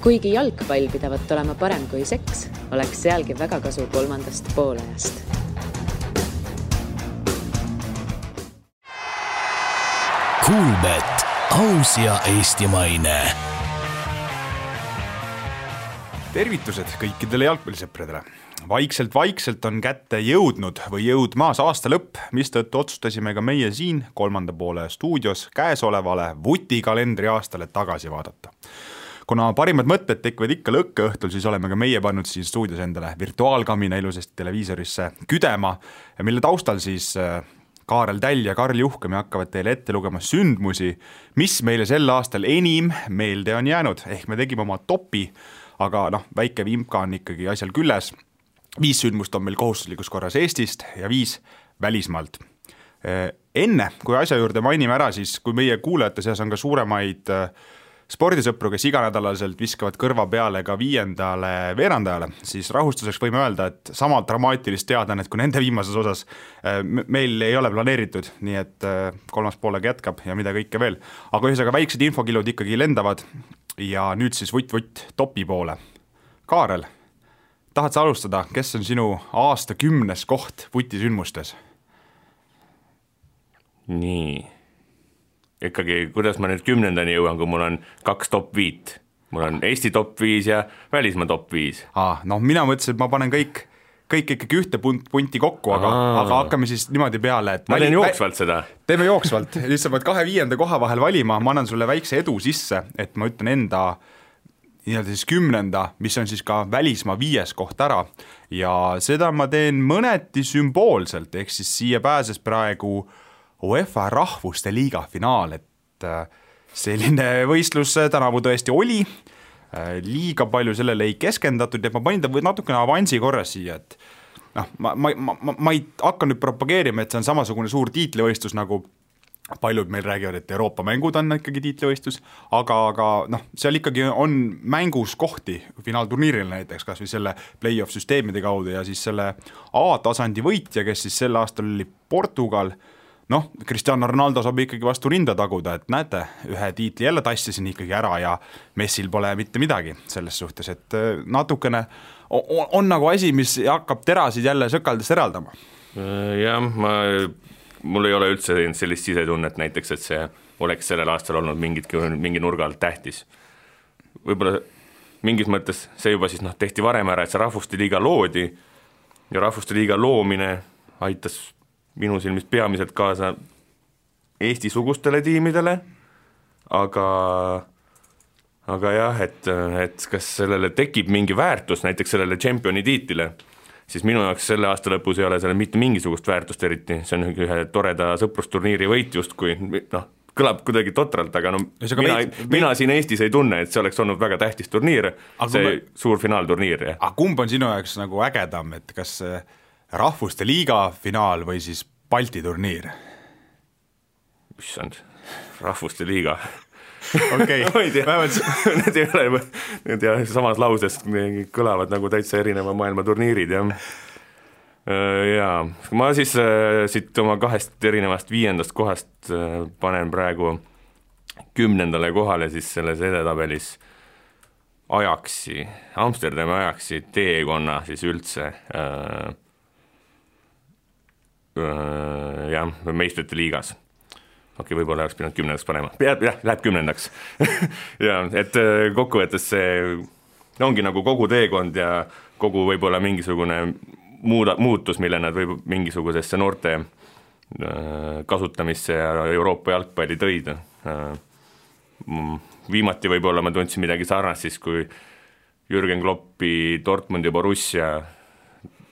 Kuigi jalgpall pidavat olema parem kui seks, oleks sealgi väga kasu kolmandast poolajast. Kuulbet, aus ja eestimaine. Tervitused kõikidele jalgpallisõpradele. Vaikselt on kätte jõudnud või jõudmaas aasta lõpp, mistõttu otsustasime ka meie siin kolmanda poole stuudios käesolevale vutikalendri aastale tagasi vaadata. Kuna parimad mõtted tekivad ikka lõkkeõhtul, siis oleme ka meie pannud siin stuudios endale virtuaalkamina ilusasti televiisorisse küdema, mille taustal siis Kaarel Täll ja Karl Juhkami hakkavad teile ette lugema sündmusi, mis meile sel aastal enim meelde on jäänud. Ehk me tegime oma topi, aga väike vimka on ikkagi asjal külles. 5 sündmust on meil kohustuslikus korras Eestist ja 5 välismaalt. Enne, kui asja juurde mainime ära, siis kui meie kuulajate seas on ka suuremaid spordisõpru, kes iganädalaselt viskavad kõrva peale ka 5. veerandajale, siis rahustuseks võime öelda, et sama dramaatilist teadanet kui nende viimases osas meil ei ole planeeritud, nii et kolmas poolega jätkab ja mida kõike veel. Aga ühesõnaga väiksed infokilud ikkagi lendavad ja nüüd siis vutt topi poole. Kaarel, tahad sa alustada, kes on sinu aasta 10. koht vutisündmustes? Nii. Ikkagi, kuidas ma nüüd 10. jõuan, kui mul on 2 top 5. Mul on Eesti top 5 ja välismaa top 5. Mina mõtlesin, et ma panen kõik ikkagi ühte punti kokku, aga hakkame siis niimoodi peale, et ma teen jooksvalt seda. Teeme jooksvalt, lihtsalt pead 2-5. koha vahel valima, ma annan sulle väikse edu sisse, et ma ütlen enda siis 10., mis on siis ka välismaa 5. koht ära ja seda ma teen mõneti sümboolselt, ehk siis siia pääses praegu UEFA rahvuste liiga finaal, et selline võistlus tänavu tõesti oli, liiga palju sellele ei keskendatud ja ma panin ta natukene avansi korras siia, et ma ei hakka nüüd propageerima, et see on samasugune suur tiitlivõistlus, nagu paljud meil räägivad, et Euroopa mängud on ikkagi tiitlivõistlus, aga seal ikkagi on mängus kohti finaalturniiril näiteks, kas või selle play-off süsteemide kaudu ja siis selle A-tasandi võitja, kes siis sel aastal oli Portugal. Cristiano Ronaldo saab ikkagi vastu rinda taguda, et näete, ühe tiitli jälle tassisin ikkagi ära ja Messil pole mitte midagi selles suhtes, et natukene on nagu asi, mis hakkab terasid jälle sõkaldest eraldama. Jah, mul ei ole üldse sellist sisetunnet näiteks, et see oleks sellel aastal olnud mingi nurga alt tähtis. Võib-olla mingis mõttes see juba siis tehti varem ära, et see rahvuste liiga loodi ja rahvuste liiga loomine aitas minu silmis peamiselt kaasa Eesti-sugustele tiimidele, aga jah, et kas sellele tekib mingi väärtus, näiteks sellele championi tiitlile, siis minu jaoks selle aasta lõpus ei ole selle mitte mingisugust väärtust eriti, see on ühe toreda sõprusturniiri võit just, kui kõlab kuidagi totralt, aga mina siin Eestis ei tunne, et see oleks olnud väga tähtis turniir, suur finaalturniir. Aga kumb on sinu jaoks nagu ägedam, et kas rahvuste liiga finaal või siis Balti turniir? Issand, rahvuste liiga. Okei, need ei ole, need samas lauses kõlavad nagu täitsa erineva maailma turniirid. Ja ma siis siit oma 2 erinevast 5. kohast panen praegu 10. kohale siis selles edetabelis Ajaxi, Amsterdami Ajaxi teekonna siis üldse meistrite liigas. Okei, võib-olla oleks pidanud 10. panema. Läheb 10. ja, et kokkuvõttes see ongi nagu kogu teekond ja kogu võib-olla mingisugune muutus, mille nad võib mingisugusesse noorte kasutamisse ja Euroopa jalgpalli tõid. Viimati võib-olla ma tundsin midagi sarnast siis, kui Jürgen Kloppi Dortmund ja Borussia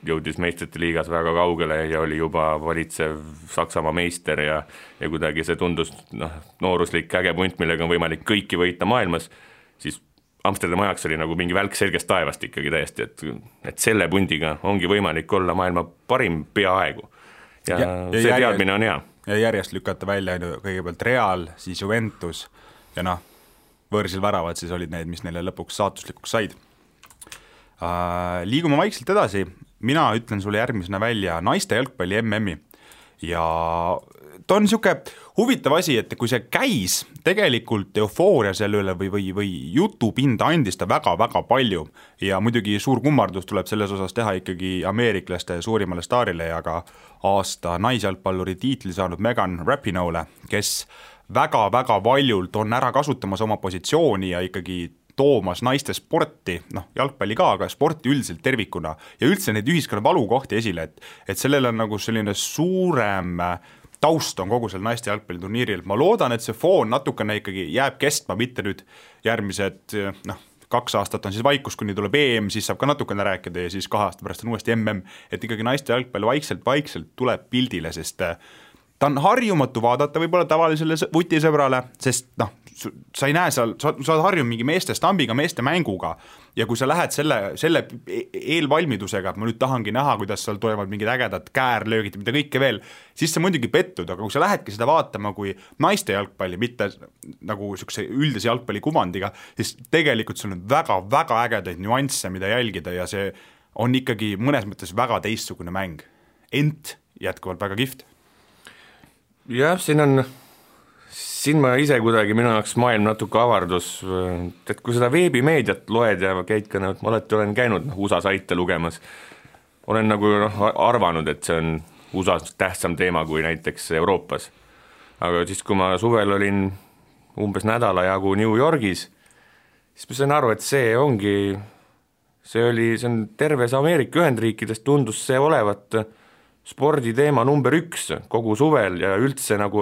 jõudis meistrite liigas väga kaugele ja oli juba valitsev Saksamaa meister ja kuidagi see tundus nooruslik äge punt, millega on võimalik kõiki võita maailmas, siis Amsterdam Ajax oli nagu mingi välk selgest taevast ikkagi täiesti, et selle pundiga ongi võimalik olla maailma parim peaaegu ja see teadmine on hea. Ja järjest lükata välja kõigepealt Real, siis Juventus ja võõrsil väravad siis olid need, mis neile lõpuks saatuslikuks said. Liigume vaikselt edasi. Mina ütlen sulle järgmisena välja naiste jalgpalli MM-i, ja ta on niisugune huvitav asi, et kui see käis, tegelikult eufooria selle üle või jutupinda andis ta väga-väga palju ja muidugi suur kummardus tuleb selles osas teha ikkagi ameeriklaste suurimale staarile ja ka aasta naisjalgpalluri tiitli saanud Megan Rapinoe'le, kes väga-väga valjult on ära kasutamas oma positsiooni ja ikkagi toomas naiste sporti, jalgpalli ka, aga sporti üldiselt tervikuna ja üldse neid ühiskonna valukohti esile, et sellel on nagu selline suurem taust on kogu selle naiste jalgpalliturniiril. Ma loodan, et see foon natukene ikkagi jääb kestma, mitte nüüd järgmised 2 aastat on siis vaikus, kuni tuleb EM, siis saab ka natukene rääkida ja siis 2 aasta pärast on uuesti MM, et ikkagi naiste jalgpall vaikselt tuleb pildile, sest ta on harjumatu vaadata võib-olla tavalisele vutisõbrale, sest sa ei näe seal, sa oled harjunud mingi meeste stambiga, meeste mänguga ja kui sa lähed selle eelvalmidusega, et ma nüüd tahangi näha, kuidas seal toimuvad mingid ägedad käärlöögid ja mida kõike veel, siis sa muidugi pettud, aga kui sa lähedki seda vaatama kui naiste jalgpalli, mitte nagu niisuguse üldise jalgpalli kuvandiga, siis tegelikult sul on väga-väga ägedaid nüansse, mida jälgida ja see on ikkagi mõnes mõttes väga teistsugune mäng. Ent jätkuvalt väga kihvt. Jah, siin ma ise kuidagi minu jaoks maailm natuke avardus, et kui seda veebimeediat loed ja käid ka, ma olen käinud USA saite lugemas, olen nagu arvanud, et see on USA-s tähtsam teema kui näiteks Euroopas. Aga siis, kui ma suvel olin umbes nädala jagu New Yorgis, siis ma sain aru, et see on terves Ameerika Ühendriikides tundus see olevat sporditeema number 1 kogu suvel ja üldse nagu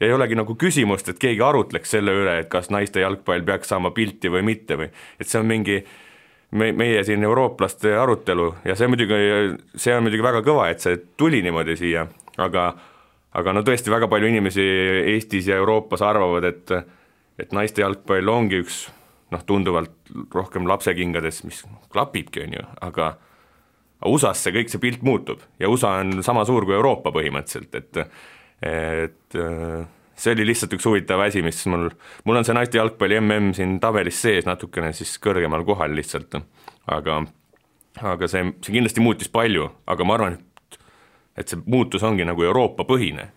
ei olegi nagu küsimust, et keegi arutleks selle üle, et kas naiste jalgpall peaks saama pilti või mitte või et see on mingi meie siin eurooplaste arutelu ja see on muidugi väga kõva, et see tuli niimoodi siia, aga no tõesti väga palju inimesi Eestis ja Euroopas arvavad, et naiste jalgpall ongi üks tunduvalt rohkem lapsekingades, mis klapibki on ju, aga USA-s kõik see pilt muutub ja USA on sama suur kui Euroopa põhimõtteliselt, et see oli lihtsalt üks huvitav asi, mis mul on see naiste jalgpalli MM siin tabelis sees natukene siis kõrgemal kohal lihtsalt, aga see kindlasti muutis palju, aga ma arvan, et see muutus ongi nagu Euroopa põhine.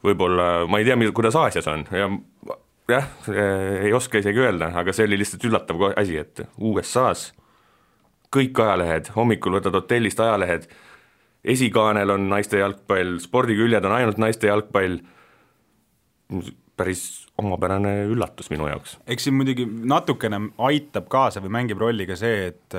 Võib-olla, ma ei tea, kuidas Aasias on ja jah, ei oska isegi öelda, aga see oli lihtsalt üllatav asi, et USA-s kõik ajalehed, hommikul võtad hotellist ajalehed, esikaanel on naiste jalgpall, spordiküljed on ainult naiste jalgpall, päris omapärane üllatus minu jaoks. Eks siin muidugi natukene aitab kaasa või mängib rolli ka see, et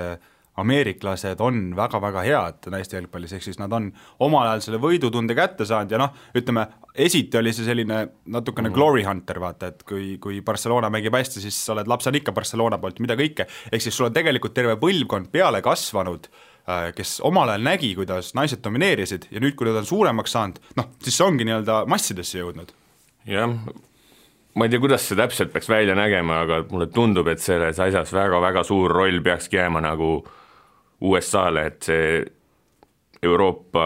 ameeriklased on väga-väga head naiste jalgpallis, ehk siis nad on omal ajal selle võidutunde kätte saanud ja ütleme, esiti oli see selline natukene glory hunter, vaata, et kui Barcelona mängib hästi, siis sa oled lapsed ikka Barcelona poolt, mida kõike, ehk siis sul on tegelikult terve põlvkond peale kasvanud, kes omal ajal nägi, kuidas naised domineerisid ja nüüd, kui nad on suuremaks saanud, siis see ongi nii-öelda massidesse jõudnud. Jah, ma ei tea, kuidas see täpselt peaks välja nägema, aga mulle tundub, et selles asjas väga-väga suur roll peakski jääma nagu USA-le, et see Euroopa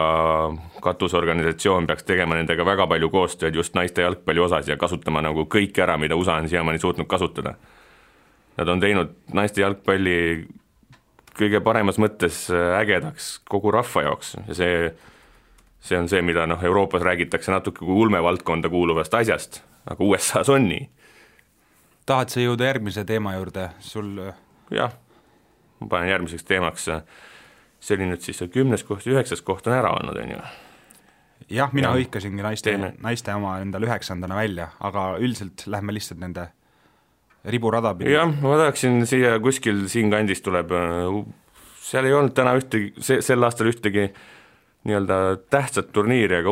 katusorganisatsioon peaks tegema nendega väga palju koostööd just naiste jalgpalli osas ja kasutama nagu kõik ära, mida USA on siiamaani suutnud kasutada. Nad on teinud naiste jalgpalli kõige paremas mõttes ägedaks kogu rahva jaoks ja see on see, mida Euroopas räägitakse natuke kui ulmevaldkonda kuuluvast asjast, aga USA-s on nii. Tahad sa jõuda järgmise teema juurde? Jah, ma panen järgmiseks teemaks, see oli nüüd siis 10. koht, 9. koht on ära olnud, on ju? Jah, mina hõikasingi naiste oma endal 9. välja, aga üldiselt lähme lihtsalt nende riburada pidi. Jah, ma tahaksin siia kuskil siin kandis tuleb, seal ei olnud täna sel aastal ühtegi nii-öelda tähtsat turniiri, aga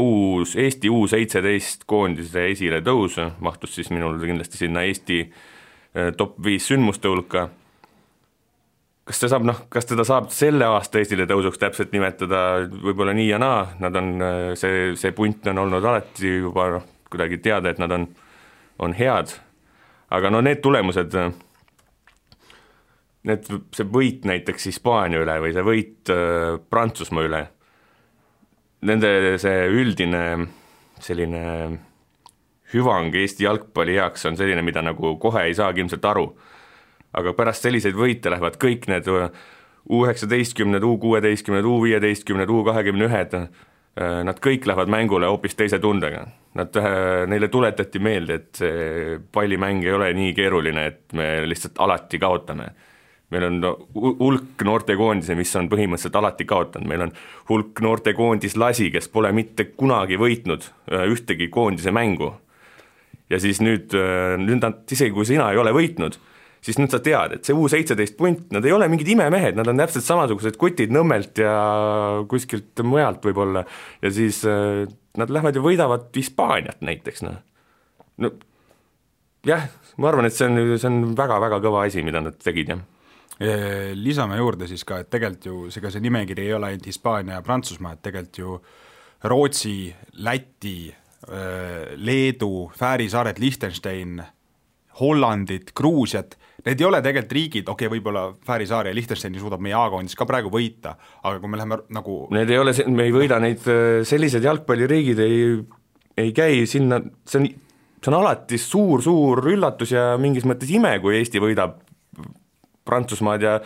Eesti U17 koondise esile tõus mahtus siis minul kindlasti sinna Eesti top 5 sündmuste hulka. Kas teda saab selle aasta esile tõusuks täpselt nimetada, võib-olla nii ja naa, nad on, see punt on olnud alati juba kuidagi teada, et nad on head, aga need tulemused, see võit näiteks Hispaania üle või see võit Prantsusmaa üle, nende see üldine selline hüvang Eesti jalgpalli heaks on selline, mida nagu kohe ei saagi ilmselt aru. Aga pärast selliseid võite lähevad kõik need U19, U16, U15, U21 nad kõik lähevad mängule hoopis teise tundega. Neile tuletati meelde, et see pallimäng ei ole nii keeruline, et me lihtsalt alati kaotame. Meil on hulk noortekoondise, mis on põhimõtteliselt alati kaotanud. Meil on hulk noortekoondis lasi, kes pole mitte kunagi võitnud ühtegi koondise mängu. Ja siis nüüd nad, isegi kui sina ei ole võitnud, siis nüüd sa tead, et see U17 punt, nad ei ole mingid imemehed, nad on täpselt samasugused kutid Nõmmelt ja kuskilt mujalt võib-olla. Ja siis nad lähevad ja võidavad Hispaaniat näiteks. No, jah, ma arvan, et see on väga-väga kõva asi, mida nad tegid, jah. Lisame juurde siis ka, et tegelikult ju see nimekiri ei ole ainult Hispaania ja Prantsusmaa, et tegelikult ju Rootsi, Läti, Leedu, Fääri saared, Liechtenstein, Hollandit, Gruusiat, need ei ole tegelikult riigid, võib-olla Fääri saar ja Liechtensteini suudab meie A-koondis ka praegu võita, aga kui me läheme nagu need ei ole, me ei võida neid, sellised jalgpalliriigid ei käi sinna, see on alati suur üllatus ja mingis mõttes ime, kui Eesti võidab Prantsusmaad ja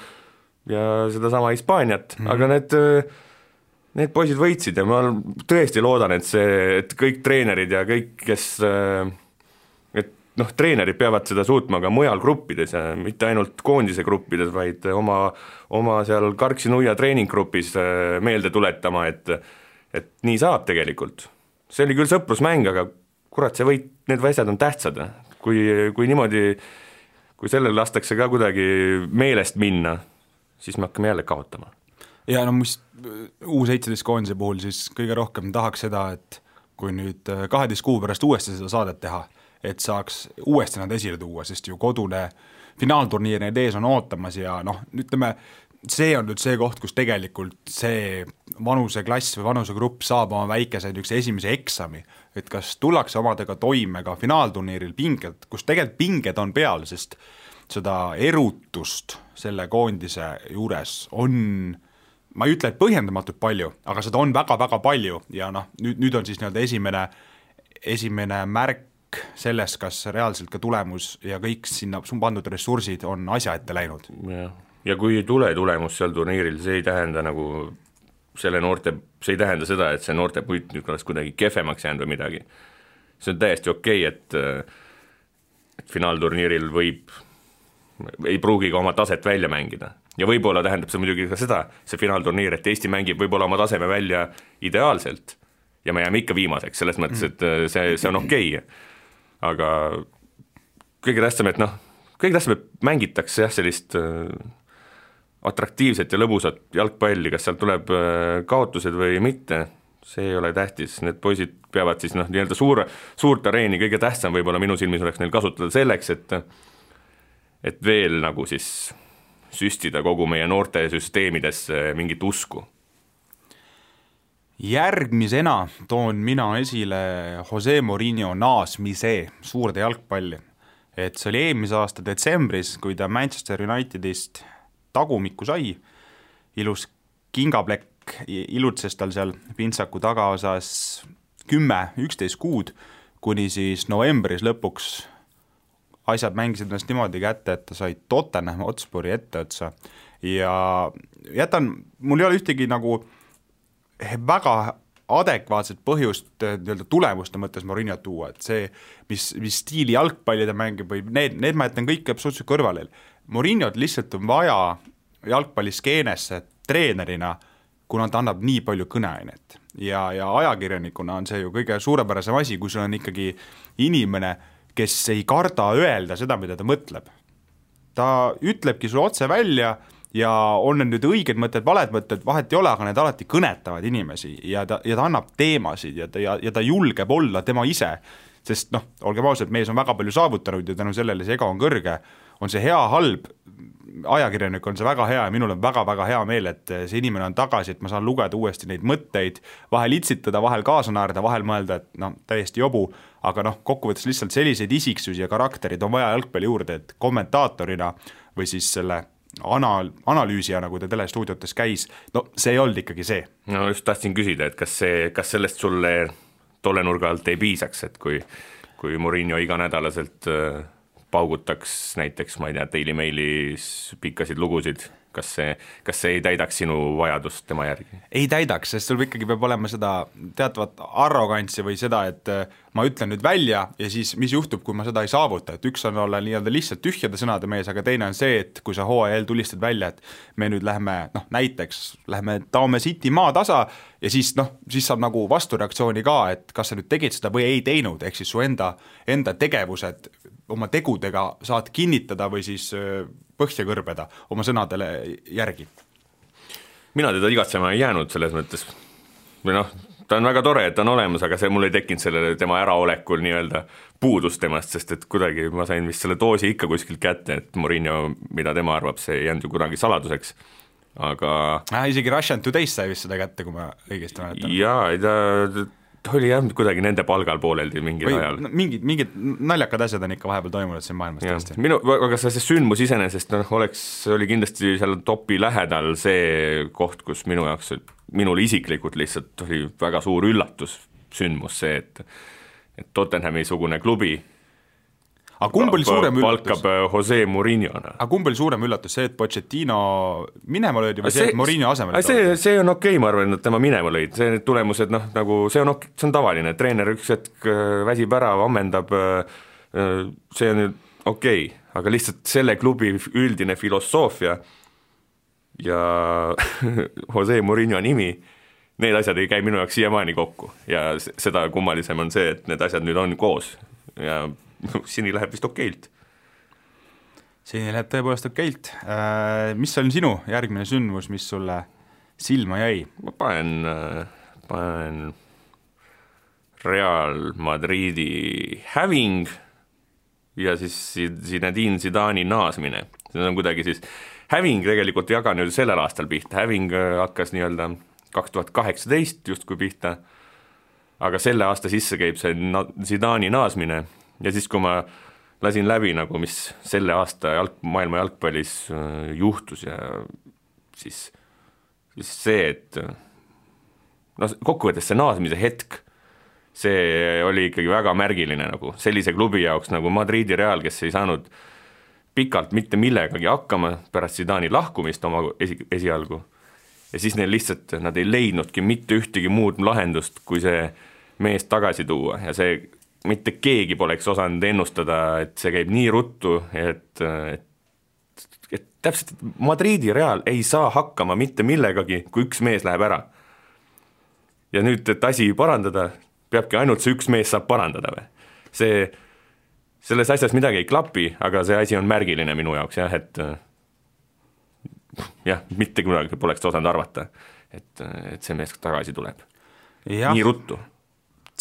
sedasama Hispaaniat, aga need poisid võitsid ja ma tõesti loodan, et kõik treenerid ja kõik, kes treenerid peavad seda suutma ka mujal gruppides ja mitte ainult koondise gruppides, vaid oma seal Karksi-Nuia treeninggrupis meelde tuletama, et nii saab tegelikult. See oli küll sõprusmäng, aga kurat, need asjad on tähtsad. Kui niimoodi kui sellel lastakse ka kuidagi meelest minna, siis me hakkame jälle kaotama. Ja mis U17 koondise puhul siis kõige rohkem tahaks seda, et kui nüüd 12 kuu pärast uuesti seda saadet teha, et saaks uuesti nad esile tuua, sest ju kodune finaalturniir need ees on ootamas ja ütleme, see on nüüd see koht, kus tegelikult see vanuseklass või vanusegrupp saab oma väikese esimese eksami, et kas tullakse omadega toime ka finaalturniiril pinged, kus tegelikult pinged on peal, sest seda erutust selle koondise juures on, ma ei ütle, et põhjendamatult palju, aga seda on väga-väga palju ja nüüd on siis esimene märk selles, kas reaalselt ka tulemus ja kõik sinna pandud ressursid on asja ette läinud. Ja kui ei tule tulemus seal turniiril, see ei tähenda see ei tähenda seda, et see noorte puit nüüd oleks kuidagi kehvemaks jäänud või midagi. See on täiesti okei, et finaalturniiril ei pruugi ka oma taset välja mängida. Ja võib-olla tähendab see muidugi ka seda, see finaalturniir, et Eesti mängib võib-olla oma taseme välja ideaalselt ja me jääme ikka viimaseks, selles mõttes, et see on okei. Aga kõige tähtsam, et mängitakse sellist atraktiivset ja lõbusat jalgpalli, kas sealt tuleb kaotused või mitte, see ei ole tähtis, need poisid peavad siis nii-öelda suurt areeni, kõige tähtsam võib-olla minu silmis oleks neil kasutada selleks, et veel nagu siis süstida kogu meie noorte süsteemidesse mingit usku. Järgmisena toon mina esile Jose Mourinho naasmise suurde jalgpalli. Et see oli eelmise aasta detsembris, kui ta Manchester Unitedist tagumikku sai, ilus kingaplekk ilutses tal seal pintsaku tagaosas 10-11 kuud, kuni siis novembris lõpuks asjad mängisid ennast niimoodi kätte, et ta sai Tottenham Hotspuri etteotsa ja mul ei ole ühtegi nagu väga adekvaatset põhjust tulemuste mõttes Mourinho tuua, et see, mis stiili jalgpalli ta mängib või need ma jätan kõik absoluutselt kõrvale. Mourinhot lihtsalt on vaja jalgpalliskeenesse treenerina, kuna ta annab nii palju kõneainet ja ajakirjanikuna on see ju kõige suurepärasem asi, kui sul on ikkagi inimene, kes ei karda öelda seda, mida ta mõtleb. Ta ütlebki sulle otse välja ja on nüüd õiged mõtted, valed mõtted, vahet ei ole, aga need alati kõnetavad inimesi ja ta annab teemasid ja ta julgeb olla tema ise, sest olgem ausalt, mees on väga palju saavutanud ja tänu sellele see ego on kõrge, on see hea, halb, ajakirjanik on see väga hea ja minul on väga-väga hea meel, et see inimene on tagasi, et ma saan lugeda uuesti neid mõtteid, vahel itsitada, vahel kaasa naerda, vahel mõelda, et täiesti jobu, aga kokkuvõttes lihtsalt selliseid isiksusi ja karakterid on vaja jalgpalli juurde, et kommentaatorina või siis selle analüüsija, nagu ta telestuudiotes käis, see ei olnud ikkagi see. No just tahtsin küsida, et kas sellest sulle tolle nurga alt ei piisaks, et kui Mourinho iganädalaselt paugutaks näiteks, ma ei tea, Daily Mailis pikkasid lugusid. kas see ei täidaks sinu vajadust tema järgi? Ei täidaks, sest sul ikkagi peab olema seda teatavat arrogantsi või seda, et ma ütlen nüüd välja ja siis mis juhtub, kui ma seda ei saavuta, et üks on olla nii-öelda lihtsalt tühjade sõnade mees, aga teine on see, et kui sa hooajal tulistad välja, et me nüüd läheme, näiteks läheme Taome City maatasa ja siis saab nagu vastureaktsiooni ka, et kas sa nüüd tegid seda või ei teinud, ehk siis su enda tegevused oma tegudega saad kinnitada või siis põhja kõrbeda oma sõnadele järgi. Mina teda igatsema ei jäänud selles mõttes, või ta on väga tore, et ta on olemas, aga see mul ei tekkinud sellele tema äraolekul nii-öelda puudus temast, sest et kuidagi ma sain vist selle doosi ikka kuskilt kätte, et Mourinho, mida tema arvab, see ei jäänud ju kunagi saladuseks, aga isegi Russian Today's sai vist seda kätte, kui ma õigesti mäletan. Jaa, ta oli jah kuidagi nende palgal pooleldi mingil ajal. Mingid naljakad asjad on ikka vahepeal toimunud siin maailmas tõesti. Aga see sündmus iseenesest oli kindlasti seal topi lähedal see koht, kus minul isiklikult lihtsalt oli väga suur üllatus sündmus see, et Tottenhami sugune klubi Aga kumb oli suurem üllatus? Palkab Jose Mourinhona. Aga kumb oli suurem üllatus, see, et Pochettino minema lõidi või see, et Mourinho asemel? See on okei, ma arvan, et tema minema lõid, see tulemused, nagu see on tavaline, treener üks hetk väsib ära, ammendab, see on okei, aga lihtsalt selle klubi üldine filosoofia ja Jose Mourinho nimi, need asjad ei käi minu jaoks siiamaani kokku ja seda kummalisem on see, et need asjad nüüd on koos ja sini läheb vist okeilt. Sini läheb tõepoolest okeilt. Mis on sinu järgmine sündmus, mis sulle silma jäi? Ma panen Real Madridi häving ja siis Zinedine Zidane'i naasmine. See on kuidagi siis, häving tegelikult ei jaga nüüd sellel aastal pihta, häving hakkas nii-öelda 2018 justkui pihta, aga selle aasta sisse käib see Zidane'i naasmine. Ja siis, kui ma lasin läbi, nagu mis selle aasta maailma jalgpallis juhtus ja siis see, et kokkuvõttes see naasmise hetk, see oli ikkagi väga märgiline nagu sellise klubi jaoks nagu Madridi Real, kes ei saanud pikalt mitte millegagi hakkama pärast Zidane'i lahkumist oma esialgu. Ja siis neil lihtsalt, nad ei leidnudki mitte ühtegi muud lahendust, kui see mees tagasi tuua ja see mitte keegi poleks osanud ennustada, et see käib nii ruttu, et täpselt Madridi Real ei saa hakkama mitte millegagi, kui üks mees läheb ära. Ja nüüd, et asi parandada, peabki ainult see üks mees saab parandada või. Selles asjas midagi ei klapi, aga see asi on märgiline minu jaoks, jah, et mitte kunagi poleks osanud arvata, et see mees tagasi tuleb. Ja. Nii ruttu.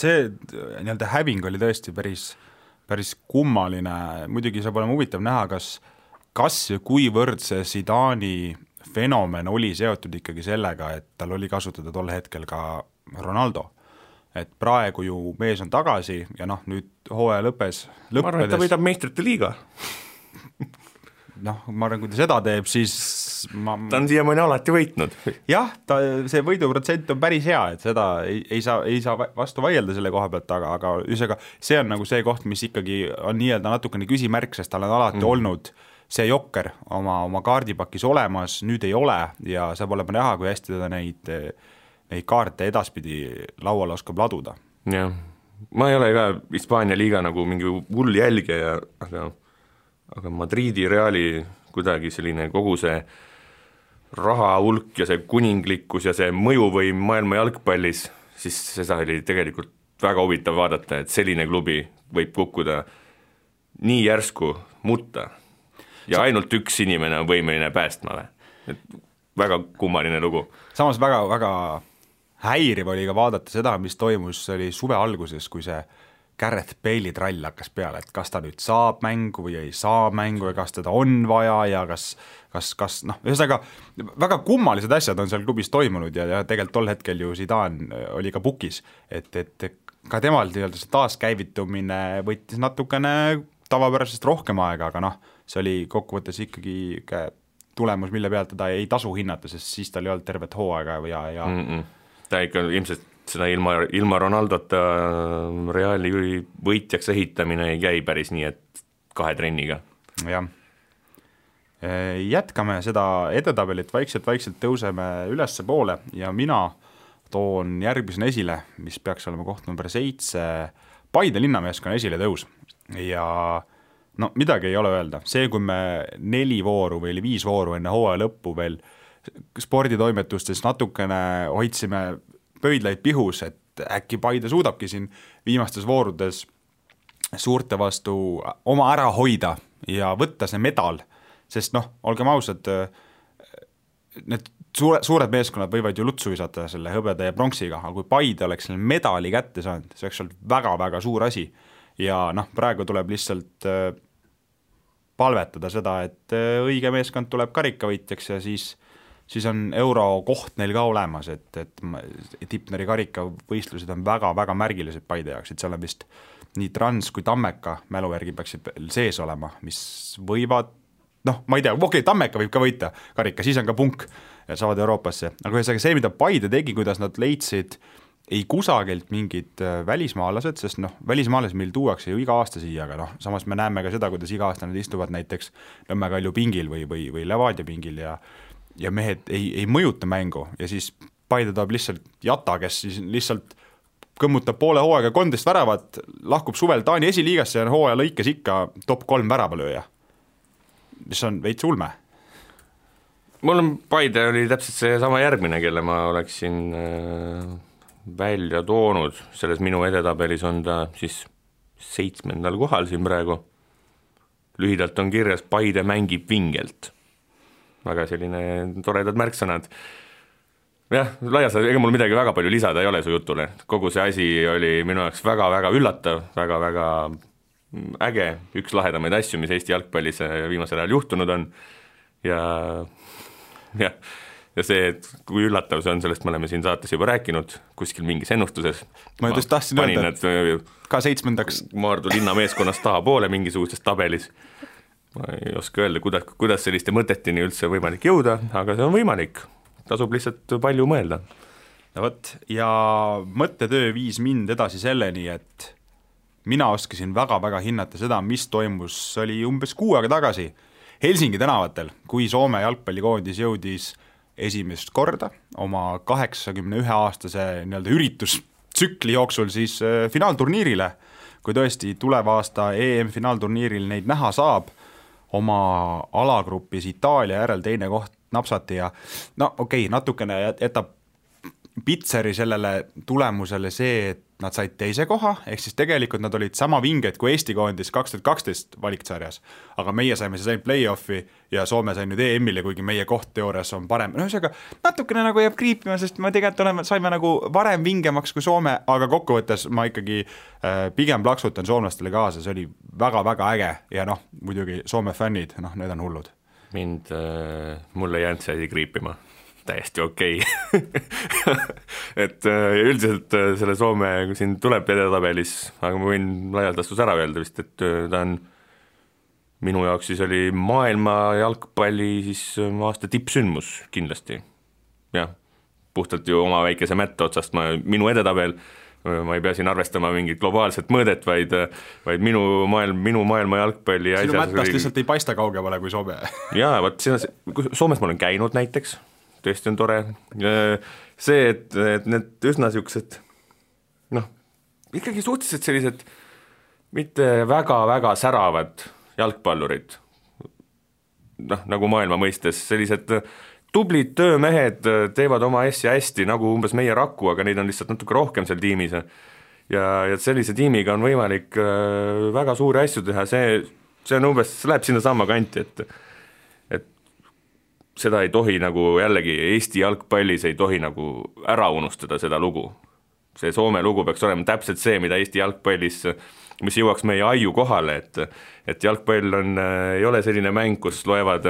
See nii-öelda häving oli tõesti päris kummaline, muidugi saab olema huvitav näha, kas ja kuivõrd see Zidane'i fenomen oli seotud ikkagi sellega, et tal oli kasutada tol hetkel ka Ronaldo, et praegu ju mees on tagasi ja nüüd hooaja lõppes. Ma arvan, et ta võidab meistrite liiga. Ma arvan, kui ta seda teeb, siis ta on siiamaani alati võitnud. Jah, see võiduprotsent on päris hea, et seda ei saa vastu vaielda selle koha pealt, aga see on nagu see koht, mis ikkagi on nii-öelda natukene küsimärk, sest tal on alati olnud see jokker oma kaardipakis olemas, nüüd ei ole ja saab olema näha, kui hästi teda neid kaarte edaspidi lauale oskab laduda. Jah, ma ei ole ka Hispaania liiga nagu mingi hull jälgija, aga Madridi Reali kuidagi selline kogu see raha hulk ja see kuninglikkus ja see mõjuvõim maailma jalgpallis, siis seda oli tegelikult väga huvitav vaadata, et selline klubi võib kukkuda nii järsku mutta ja ainult üks inimene on võimeline päästma. Et väga kummaline lugu. Samas väga häiriv oli ka vaadata seda, mis toimus, see oli suve alguses, kui see Gareth Bale'i trall hakkas peale, et kas ta nüüd saab mängu või ei saa mängu ja kas teda on vaja ja kas ühesõnaga väga kummalised asjad on seal klubis toimunud ja tegelikult tol hetkel ju Zidane oli ka pukis, et ka temal see taaskäivitumine võttis natukene tavapärasest rohkem aega, aga see oli kokkuvõttes ikkagi tulemus, mille pealt teda ei tasu hinnata, sest siis tal ei olnud tervet hooaega ja ta ikka ilmselt seda ilma Ronaldota Reali võitjaks ehitamine ei käi päris nii, et 2 trenniga. Jah. Jätkame seda edetabelit, vaikselt tõuseme ülesse poole ja mina toon järgmisena esile, mis peaks olema koht number 7, Paide linnameeskonna esile tõus. Ja no midagi ei ole öelda. See, kui me 4 vooru või 5 vooru enne hooaja lõppu veel sporditoimetustes natukene hoidsime pöidlaid pihus, et äkki Paide suudabki siin viimastes voorudes suurte vastu oma ära hoida ja võtta see medal, sest noh, olgem ausad, need suured meeskonnad võivad ju lutsu visata selle hõbeda ja pronksiga, aga kui Paide oleks selle medali kätte saanud, see oleks olnud väga-väga suur asi ja noh, praegu tuleb lihtsalt palvetada seda, et õige meeskond tuleb karikavõitjaks ja siis on euro koht neil ka olemas, et Tipneri karikavõistlused on väga-väga märgilised Paide jaoks, et seal on vist nii Trans kui Tammeka mäluvärgi peaksid sees olema, mis võivad, noh, ma ei tea, okei, Tammeka võib ka võita karika, siis on ka punk ja saavad Euroopasse, aga see, mida Paide tegi, kuidas nad leidsid ei kusagilt mingid välismaalased, sest noh, välismaalased meil tuuakse ju iga aasta siia, aga noh, samas me näeme ka seda, kuidas iga aasta nad istuvad näiteks Nõmme Kalju pingil või Levadia pingil ja mehed ei mõjuta mängu ja siis Paide toob lihtsalt Jata, kes siis lihtsalt kõmmutab poole hooaega 13 väravat, lahkub suvel Taani esiliigasse ja hooaja lõikes ikka top 3 väravalööja, mis on veits ulme. Mul on Paide oli täpselt see sama järgmine, kelle ma oleksin välja toonud, selles minu edetabelis on ta siis 7. kohal siin praegu. Lühidalt on kirjas Paide mängib vingelt. Väga selline toredad märksõnad. Jah, laias, ega mul midagi väga palju lisada ei ole su jutule. Kogu see asi oli minu jaoks väga-väga üllatav, väga-väga äge, üks lahedamaid asju, mis Eesti jalgpallis viimasel ajal juhtunud on ja see, et kui üllatav see on, sellest me oleme siin saates juba rääkinud, kuskil mingis ennustuses. Ma just tahtsin öelda, ka 7. Maardu linna meeskonnast taha poole mingisuguses tabelis. Ma ei oska öelda, kuidas selliste mõtetini üldse võimalik jõuda, aga see on võimalik. Tasub lihtsalt palju mõelda. No võt, ja mõttetöö viis mind edasi selleni, et mina oskasin väga-väga hinnata seda, mis toimus, oli umbes 6 aega tagasi Helsingi tänavatel, kui Soome jalgpallikoondis jõudis esimest korda oma 81-aastase nii-öelda üritustsükli jooksul siis finaalturniirile, kui tõesti tuleva aasta EM-finaalturniiril neid näha saab, oma alagrupis Itaalia järel teine koht napsati ja no okei, natukene jätab Pitseri sellele tulemusele see, et nad said teise koha, ehk siis tegelikult nad olid sama vinged kui Eesti koondis 2012 valiksarjas, aga meie saime siis ainult play-offi ja Soome sai nüüd EM-ile, kuigi meie koht teoorias on parem. No ühesõnaga, natukene nagu jääb kriipima, sest me tegelikult saime nagu varem vingemaks kui Soome, aga kokkuvõttes ma ikkagi pigem plaksutan soomlastele kaasa, see oli väga-väga äge ja noh, muidugi Soome fännid, noh, need on hullud. Mulle jäänud see kriipima. Täiesti okei. Et üldiselt selle Soome siin tuleb edetabelis, aga ma võin laialdastus ära öelda vist, et ta on minu jaoks siis oli maailma jalgpalli siis aasta tippsündmus kindlasti. Jah, puhtalt ju oma väikese mätta otsast minu edetabel, ma ei pea siin arvestama mingit globaalset mõõdet, vaid minu maailma jalgpalli sinu mättast lihtsalt ei paista kaugemale kui Soome. Jaa, vaat Soomes ma olen käinud näiteks, tõesti on tore. See, et need üsna siuksed, noh, ikkagi suhteliselt sellised mitte väga-väga säravad jalgpallurid, noh, nagu maailma mõistes, sellised tublid töömehed teevad oma asja hästi, nagu umbes meie Raku, aga neid on lihtsalt natuke rohkem seal tiimis. Ja sellise tiimiga on võimalik väga suuri asju teha, see on umbes, see läheb sinna sama kanti, et seda ei tohi nagu jällegi Eesti jalgpallis ei tohi nagu ära unustada seda lugu. See Soome lugu peaks olema täpselt see, mida Eesti jalgpallis, mis jõuaks meie aiu kohale, et jalgpall ei ole selline mäng, kus loevad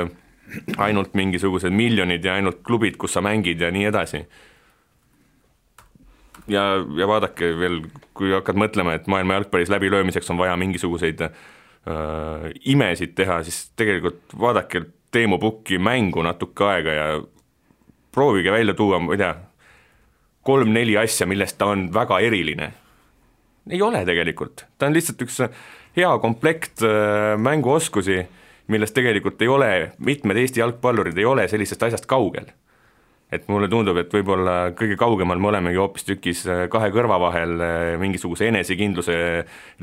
ainult mingisugused miljonid ja ainult klubid, kus sa mängid ja nii edasi. Ja vaadake veel, kui hakkad mõtlema, et maailma jalgpallis läbilöömiseks on vaja mingisuguseid imesid teha, siis tegelikult vaadake Teemu Pukki mängu natuke aega ja proovige välja tuua, ma ei tea, 3-4 asja, millest ta on väga eriline. Ei ole tegelikult. Ta on lihtsalt üks hea komplekt mänguoskusi, millest tegelikult ei ole, mitmed Eesti jalgpallurid ei ole sellisest asjast kaugel. Et mulle tundub, et võib-olla kõige kaugemal me olemegi hoopis tükis kahe kõrva vahel mingisuguse enesekindluse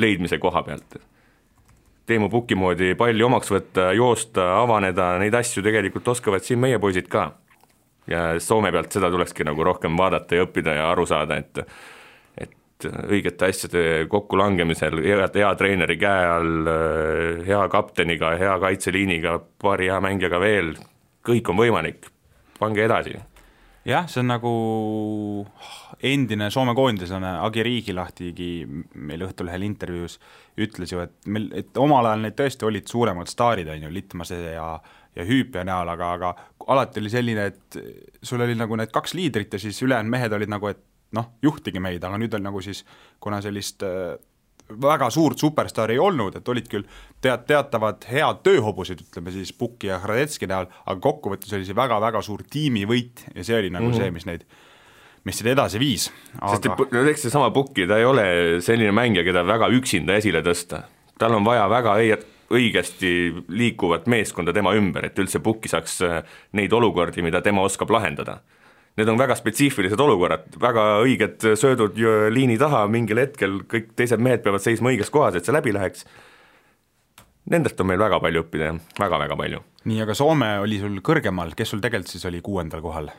leidmise koha pealt. Teemu Pukki moodi palli omaks võtta, joosta, avaneda, neid asju tegelikult oskavad siin meie poisid ka. Ja Soome pealt seda tulekski nagu rohkem vaadata ja õppida ja aru saada, et õigete asjade kokkulangemisel, hea treeneri käe all, hea kapteniga, hea kaitseliiniga, paari hea mängijaga veel, kõik on võimalik, pange edasi. Jah, see on nagu endine Soome koondislane Agi Riigilahtigi meil Õhtulehel intervjuus ütles ju, et omal ajal need tõesti olid suuremad staarid, on ju, Litmase ja Hüüpja näol, aga alati oli selline, et sul oli nagu need 2 liidrit ja siis ülejäänud mehed olid nagu, et juhtige meid, aga nüüd on nagu siis, kuna sellist väga suurt superstaari ei olnud, et olid küll teatavad head tööhobused, ütleme siis Pukki ja Hradetski näol, aga kokkuvõttes oli see väga-väga suur tiimivõit ja see oli nagu see, mis neid edasi viis. Sest eks see sama Pukki, ta ei ole selline mängija, keda väga üksinda esile tõsta. Tal on vaja väga õigesti liikuvat meeskonda tema ümber, et üldse Pukki saaks neid olukordi, mida tema oskab lahendada. Need on väga spetsiifilised olukorrad, väga õiged söödud liini taha, mingil hetkel kõik teised mehed peavad seisma õiges kohas, et see läbi läheks. Nendest on meil väga palju õppida, väga-väga palju. Nii, aga Soome oli sul kõrgemal, kes sul tegelikult siis oli 6. kohal?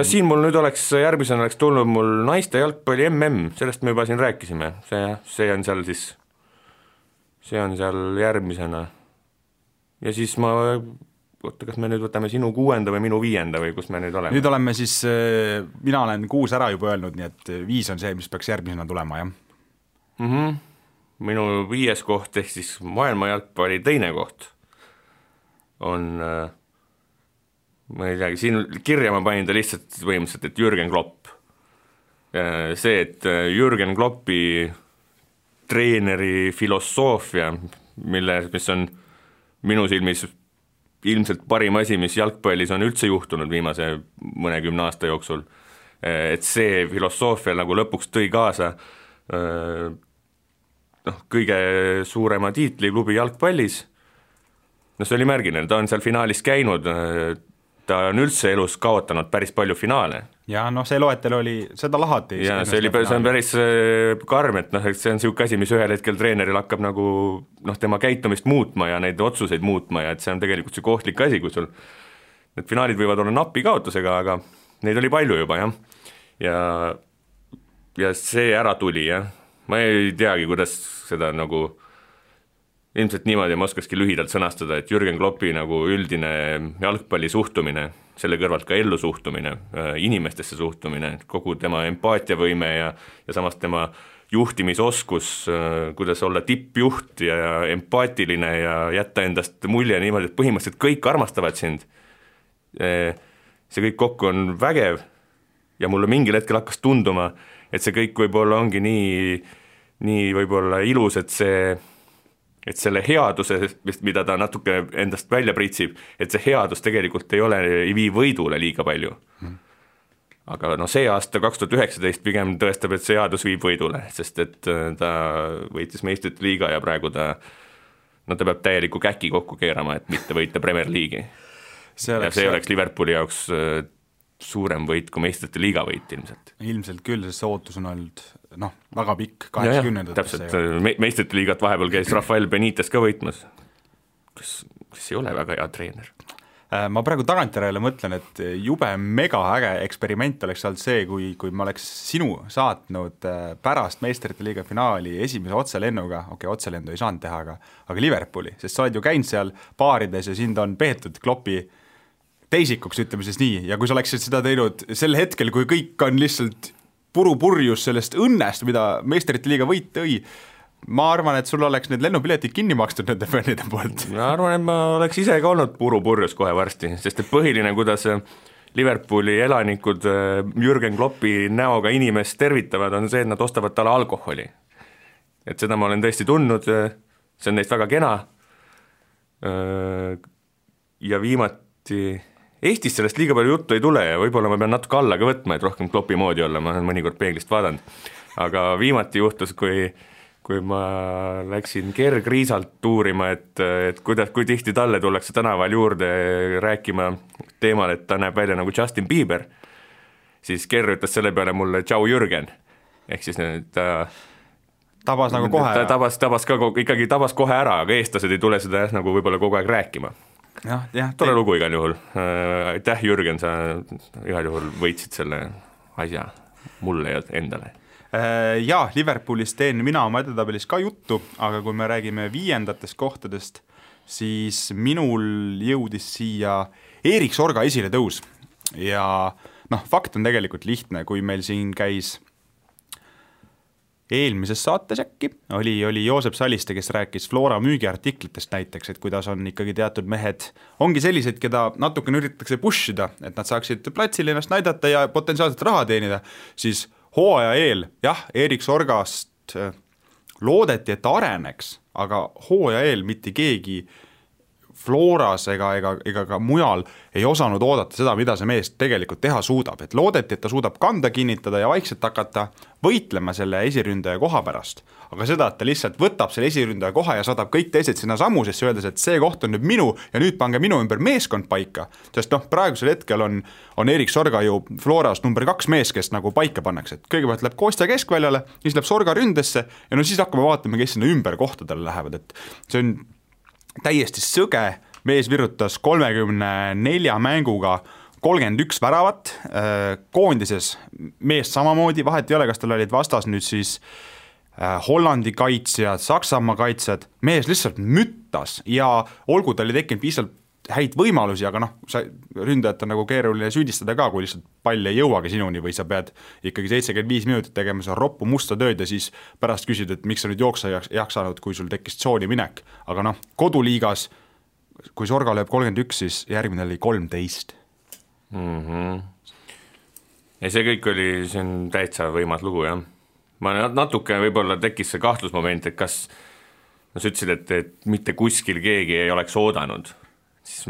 Siin mul nüüd järgmisena oleks tulnud mul naiste jalgpalli sellest me juba siin rääkisime, see on seal järgmisena. Ja siis kas me nüüd võtame sinu 6. või minu 5. või kus me nüüd oleme? Nüüd oleme siis, mina olen 6 ära juba öelnud, nii et 5 on see, mis peaks järgmisena tulema, jah? Minu 5. koht ehk siis maailma jalgpalli 2. koht on, ma ei teagi, siin kirja ma panin ta lihtsalt põhimõtteliselt, et Jürgen Klopp. See, et Jürgen Kloppi treeneri filosoofia, mis on minu silmis ilmselt parim asi, mis jalgpallis on üldse juhtunud viimase mõnekümne aasta jooksul, et see filosoofia nagu lõpuks tõi kaasa kõige suurema tiitli klubi jalgpallis. See oli märgiline, ta on seal finaalis käinud, ta on üldse elus kaotanud päris palju finaale. Ja see loetel oli, seda lahati. Ja see on päris karm, et see on siuke asi, mis ühel hetkel treeneril hakkab nagu tema käitumist muutma ja neid otsuseid muutma ja et see on tegelikult see kohtlik asi, kui sul need finaalid võivad olla napi kaotusega, aga neid oli palju juba, jah. Ja see ära tuli, jah. Ma ei teagi, kuidas seda nagu ilmselt niimoodi ma oskaski lühidalt sõnastada, et Jürgen Kloppi nagu üldine jalgpalli suhtumine, selle kõrvalt ka ellu suhtumine, inimestesse suhtumine, kogu tema empaatiavõime ja samas tema juhtimisoskus, kuidas olla tippjuht ja empaatiline ja jätta endast mulje niimoodi, et põhimõtteliselt kõik armastavad sind. See kõik kokku on vägev ja mulle mingil hetkel hakkas tunduma, et see kõik võib-olla ongi nii võib-olla ilus, et selle headuse, mida ta natuke endast välja pritsib, et see headus tegelikult ei vii võidule liiga palju. Aga see aasta 2019 pigem tõestab, et see headus viib võidule, sest et ta võitis meistrite liiga ja praegu ta peab täieliku käki kokku keerama, et mitte võita Premier League'i. See oleks Liverpooli jaoks suurem võit kui meistrite liiga võit ilmselt. Ilmselt küll, sest see ootus on olnud väga pikk, 80. Täpselt, meistrite liigat vahepeal käis Rafael Benitez ka võitmas, kes ei ole väga hea treener. Ma praegu tagantjärele mõtlen, et jube mega äge eksperiment oleks olnud see, kui ma oleks sinu saatnud pärast meistrite liiga finaali esimese otselennuga, otselendu ei saanud teha, aga Liverpooli, sest sa oled ju käinud seal baarides ja sind on peetud Kloppi teisikuks, ütleme siis nii, ja kui sa oleksid seda teinud sel hetkel, kui kõik on lihtsalt purjus sellest õnnest, mida meistrite liiga võit tõi, ma arvan, et sul oleks need lennupiletid kinni makstud nende fännide poolt. Ma arvan, et ma oleks ise ka olnud purjus kohe varsti, sest et põhiline, kuidas Liverpooli elanikud Jürgen Kloppi näoga inimest tervitavad, on see, et nad ostavad talle alkoholi. Et seda ma olen tõesti tundnud, see on neist väga kena. Ja viimati Eestis sellest liiga palju juttu ei tule ja võib-olla ma pean natuke alla ka võtma, et rohkem Kloppi moodi olla, ma olen mõnikord peeglist vaadanud. Aga viimati juhtus, kui kui ma läksin kergriisalt tuurima, et kui tihti talle tullakse tänaval juurde rääkima teemal, et ta näeb välja nagu Justin Bieber, siis Ker ütles selle peale mulle tšau Jürgen, ehk siis ta tabas nagu kohe. Ta tabas kohe ära, aga eestlased ei tule seda nagu võib-olla kogu aeg rääkima. Tore lugu igal juhul. Aitäh Jürgen, sa igal juhul võitsid selle asja mulle ja endale. Jaa, Liverpoolist teen mina oma edetabelis ka juttu, aga kui me räägime 5. kohtadest, siis minul jõudis siia Erik Sorga esile tõus ja fakt on tegelikult lihtne, kui meil siin käis eelmises saates äkki oli Joosep Saliste, kes rääkis Flora müügiartiklitest näiteks, et kuidas on ikkagi teatud mehed, ongi sellised, keda natukene üritatakse pushida, et nad saaksid platsil ennast näidata ja potentsiaalselt raha teenida, siis hooaja eel, jah, Erik Sorgast loodeti, et ta areneks, aga hooaja eel mitte keegi Floras ega ka mujal ei osanud oodata seda, mida see mees tegelikult teha suudab, et loodeti, et ta suudab kanda kinnitada ja vaikselt hakata võitlema selle esiründaja koha pärast, aga seda, et ta lihtsalt võtab selle esiründaja koha ja saadab kõik teised sinna samusesse, öeldes, et see koht on nüüd minu ja nüüd pange minu ümber meeskond paika, sest praegusel hetkel on Erik Sorga ju Floras number 2 mees, kes nagu paika pannakse, et kõigepealt läheb Kostja keskväljale, siis läheb Sorga ründesse ja siis hakkame vaatama, kes sinna ümber kohtadele lähevad, et see on täiesti sõge, mees virutas 34 mänguga 31 väravat, koondises mees samamoodi, vahet ei ole, kas tal olid vastas nüüd siis Hollandi kaitsjad, Saksamaa kaitsjad, mees lihtsalt müttas ja olgu tal ei tekkinud piisavalt häid võimalusi, aga ründajat on nagu keeruline süüdistada ka, kui lihtsalt pall ei jõuagi sinuni või sa pead ikkagi 75 minutit tegema seda roppu musta tööd ja siis pärast küsid, et miks sa nüüd jooksa jaksanud, kui sul tekkis tsooni minek. Aga koduliigas, kui Sorga lööb 31, siis järgmine oli 13. Ja see kõik oli, see on täitsa võimas lugu, jah. Ma natuke võib-olla tekkis see kahtlusmoment, et kas sa ütlesid, et mitte kuskil keegi ei oleks oodanud, siis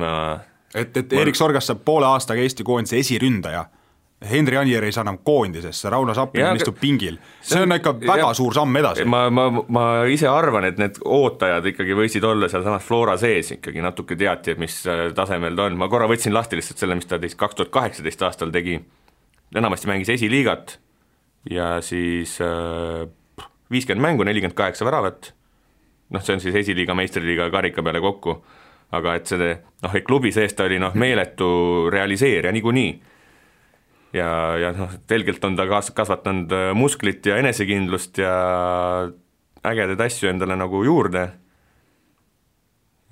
et Erik Sorgast saab poole aastaga Eesti koondise esiründaja. Henri Anier ei saa enam koondisesse, Rauno Sappin istub pingil. See on ikka väga suur samm edasi. Ma ise arvan, et need ootajad ikkagi võisid olla seal samas Flora sees ikkagi natuke teati, et mis tasemel ta on. Ma korra võtsin lahti lihtsalt selle, mis ta 2018 aastal tegi. Enamasti mängis esiliigat ja siis 50 mängu, 48 väravat. See on siis esiliiga, meistriliiga karika peale kokku. Aga et see klubi sees ta oli meeletu realiseerija niikuinii. Ja telgelt on ta kasvatanud musklit ja enesekindlust ja ägedaid asju endale nagu juurde.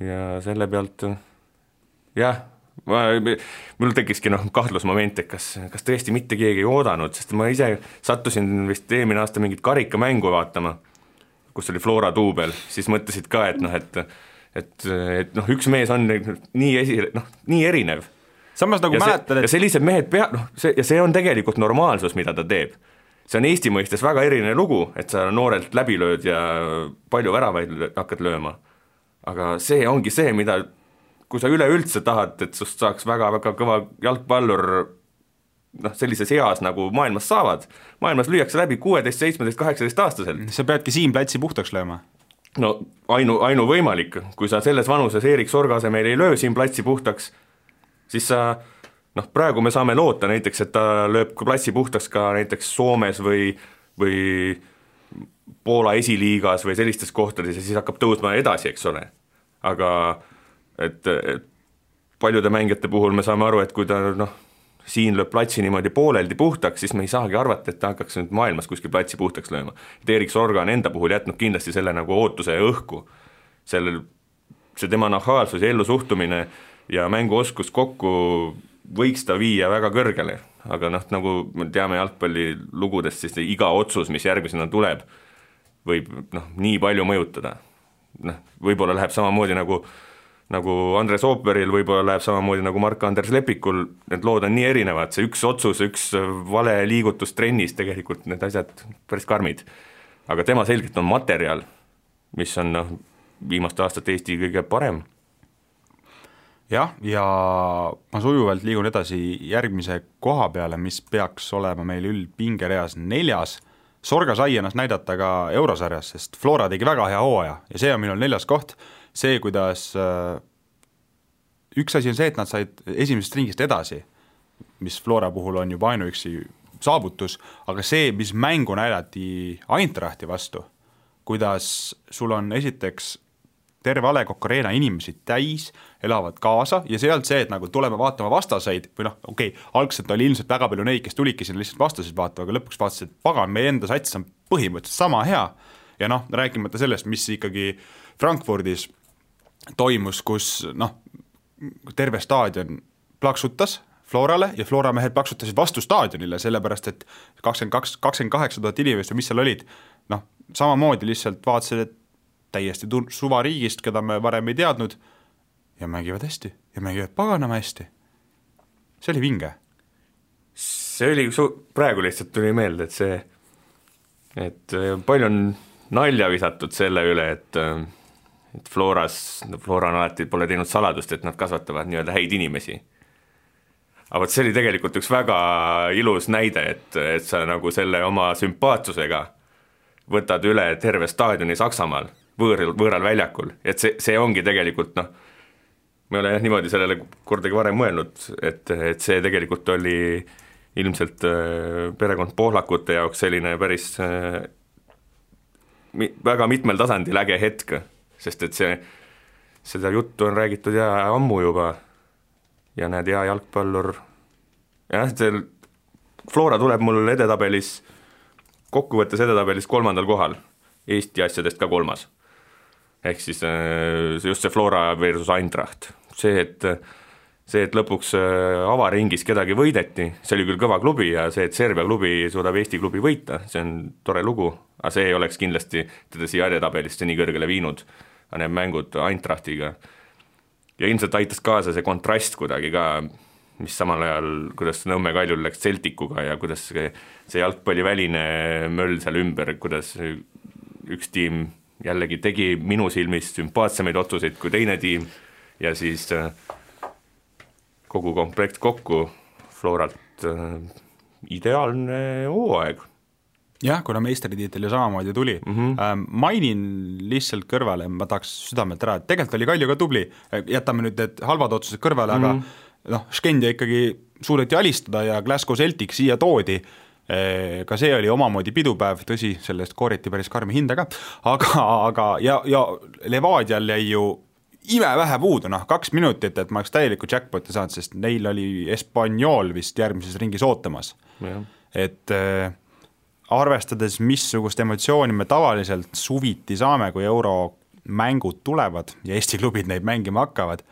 Ja selle pealt, jah, mul tekkiski kahtlusmoment, et kas tõesti mitte keegi ei oodanud, sest ma ise sattusin vist eelmine aasta mingit karikamängu vaatama, kus oli Flora duubel, siis mõtlesid ka, et üks mees on nii erinev. Samas nagu mäletad, ja sellised mehed ja see on tegelikult normaalsus, mida ta teeb. See on Eesti mõistes väga eriline lugu, et sa noorelt läbi lööd ja palju väravaid hakkad lööma. Aga see ongi see, mida, kui sa üleüldse tahad, et sust saaks väga-väga kõva jalgpallur sellises eas nagu maailmas saavad. Maailmas lüüakse läbi 16, 17, 18 aastaselt. Sa peadki siin platsi puhtaks lööma. Ainu võimalik, kui sa selles vanuses Erik Sorga asemel ei löö siin platsi puhtaks, siis sa, praegu me saame loota näiteks, et ta lööb platsi puhtaks ka näiteks Soomes või Poola esiliigas või sellistes kohtades ja siis hakkab tõusma edasi, eks ole. Aga et paljude mängijate puhul me saame aru, et kui ta siin lööb platsi niimoodi pooleldi puhtaks, siis me ei saagi arvata, et ta hakkaks nüüd maailmas kuskil platsi puhtaks lööma. Et Erik Sorga on enda puhul jätnud kindlasti selle nagu ootuse ja õhku. See tema nahaalsus ja ellusuhtumine ja mänguoskus kokku võiks ta viia väga kõrgele, aga nagu me teame jalgpalli lugudest, siis iga otsus, mis järgmisena tuleb, võib nii palju mõjutada. Võib-olla läheb samamoodi nagu Andres Ooperil, võib-olla läheb samamoodi nagu Mark-Anders Lepikul, need lood on nii erinevad, see üks otsus, üks vale liigutus trennis, tegelikult need asjad päris karmid. Aga tema selgelt on materjal, mis on viimaste aastate Eesti kõige parem. Jah, ja ma sujuvalt liigun edasi järgmise koha peale, mis peaks olema meil üldpingereas 4. Sorga sai ennast näidata ka eurosarjas, sest Flora tegi väga hea hooaja ja see on minul 4. koht, see, kuidas üks asi on see, et nad said esimesest ringist edasi, mis Flora puhul on juba ainuüksi saavutus, aga see, mis mängu näidati Eintrachti vastu, kuidas sul on esiteks terve A. Le Coq Arena inimesi täis, elavad kaasa ja see ei olnud see, et nagu tuleme vaatama vastaseid või algselt oli ilmselt väga palju neid, kes tulidki sinna lihtsalt vastaseid vaatama, aga lõpuks vaatasid, et pagan, meie enda sats on põhimõtteliselt sama hea ja rääkimata sellest, mis ikkagi Frankfurdis toimus, kus terve staadion plaksutas Florale ja Flora mehed plaksutasid vastu staadionile, sellepärast et 28 000 inimest või mis seal olid, samamoodi lihtsalt vaatasid, et täiesti suvariigist, keda me varem ei teadnud ja mängivad hästi ja mängivad paganama hästi. See oli vinge. See oli, praegu lihtsalt tuli meelde, et palju on nalja visatud selle üle, et Flora on alati pole teinud saladust, et nad kasvatavad nii-öelda häid inimesi. Aga see oli tegelikult üks väga ilus näide, et sa nagu selle oma sümpaatsusega võtad üle terve staadioni Saksamaal, võõral väljakul, et see ongi tegelikult, me ole niimoodi sellele kordagi varem mõelnud, et see tegelikult oli ilmselt perekond Pohlakute jaoks selline päris väga mitmel tasandil äge hetk, sest et seda juttu on räägitud ja ammu juba ja näed, hea jalgpallur jah, Flora tuleb mul edetabelis, kokkuvõttes edetabelis 3. kohal, Eesti asjadest ka 3. Ehk siis just see Flora versus Eintracht. See, et lõpuks avaringis kedagi võideti, see oli küll kõva klubi ja see, et Serbia klubi suudab Eesti klubi võita, see on tore lugu, aga see ei oleks kindlasti teda siia edetabelisse nii kõrgele viinud, aga need mängud Eintrachtiga. Ja ilmselt aitas kaasa see kontrast kuidagi ka, mis samal ajal, kuidas Nõmme Kaljul läks Celticuga ja kuidas see jalgpalliväline möll seal ümber, kuidas üks tiim jällegi tegi minu silmis sümpaatsemaid otsuseid kui teine tiim ja siis kogu komplekt kokku Floralt ideaalne hooaeg. Jah, kuna meistritiitel ju samamoodi tuli. Mainin lihtsalt kõrvale, ma tahaks südamelt ära, et tegelikult oli Kalju ka tubli, jätame nüüd need halvad otsused kõrvale, aga Skendia ikkagi suudeti alistada ja Glasgow Celtic siia toodi, ka see oli omamoodi pidupäev, tõsi, sellest kooriti päris karmi hinda ka, aga ja Levadial jäi ju imevähe puudu, 2 minutit, et ma oleks täieliku jackpoti saanud, sest neil oli Espanyol vist järgmises ringis ootamas. Et arvestades, missugust emotsiooni me tavaliselt suviti saame, kui euromängud tulevad ja Eesti klubid neid mängima hakkavad,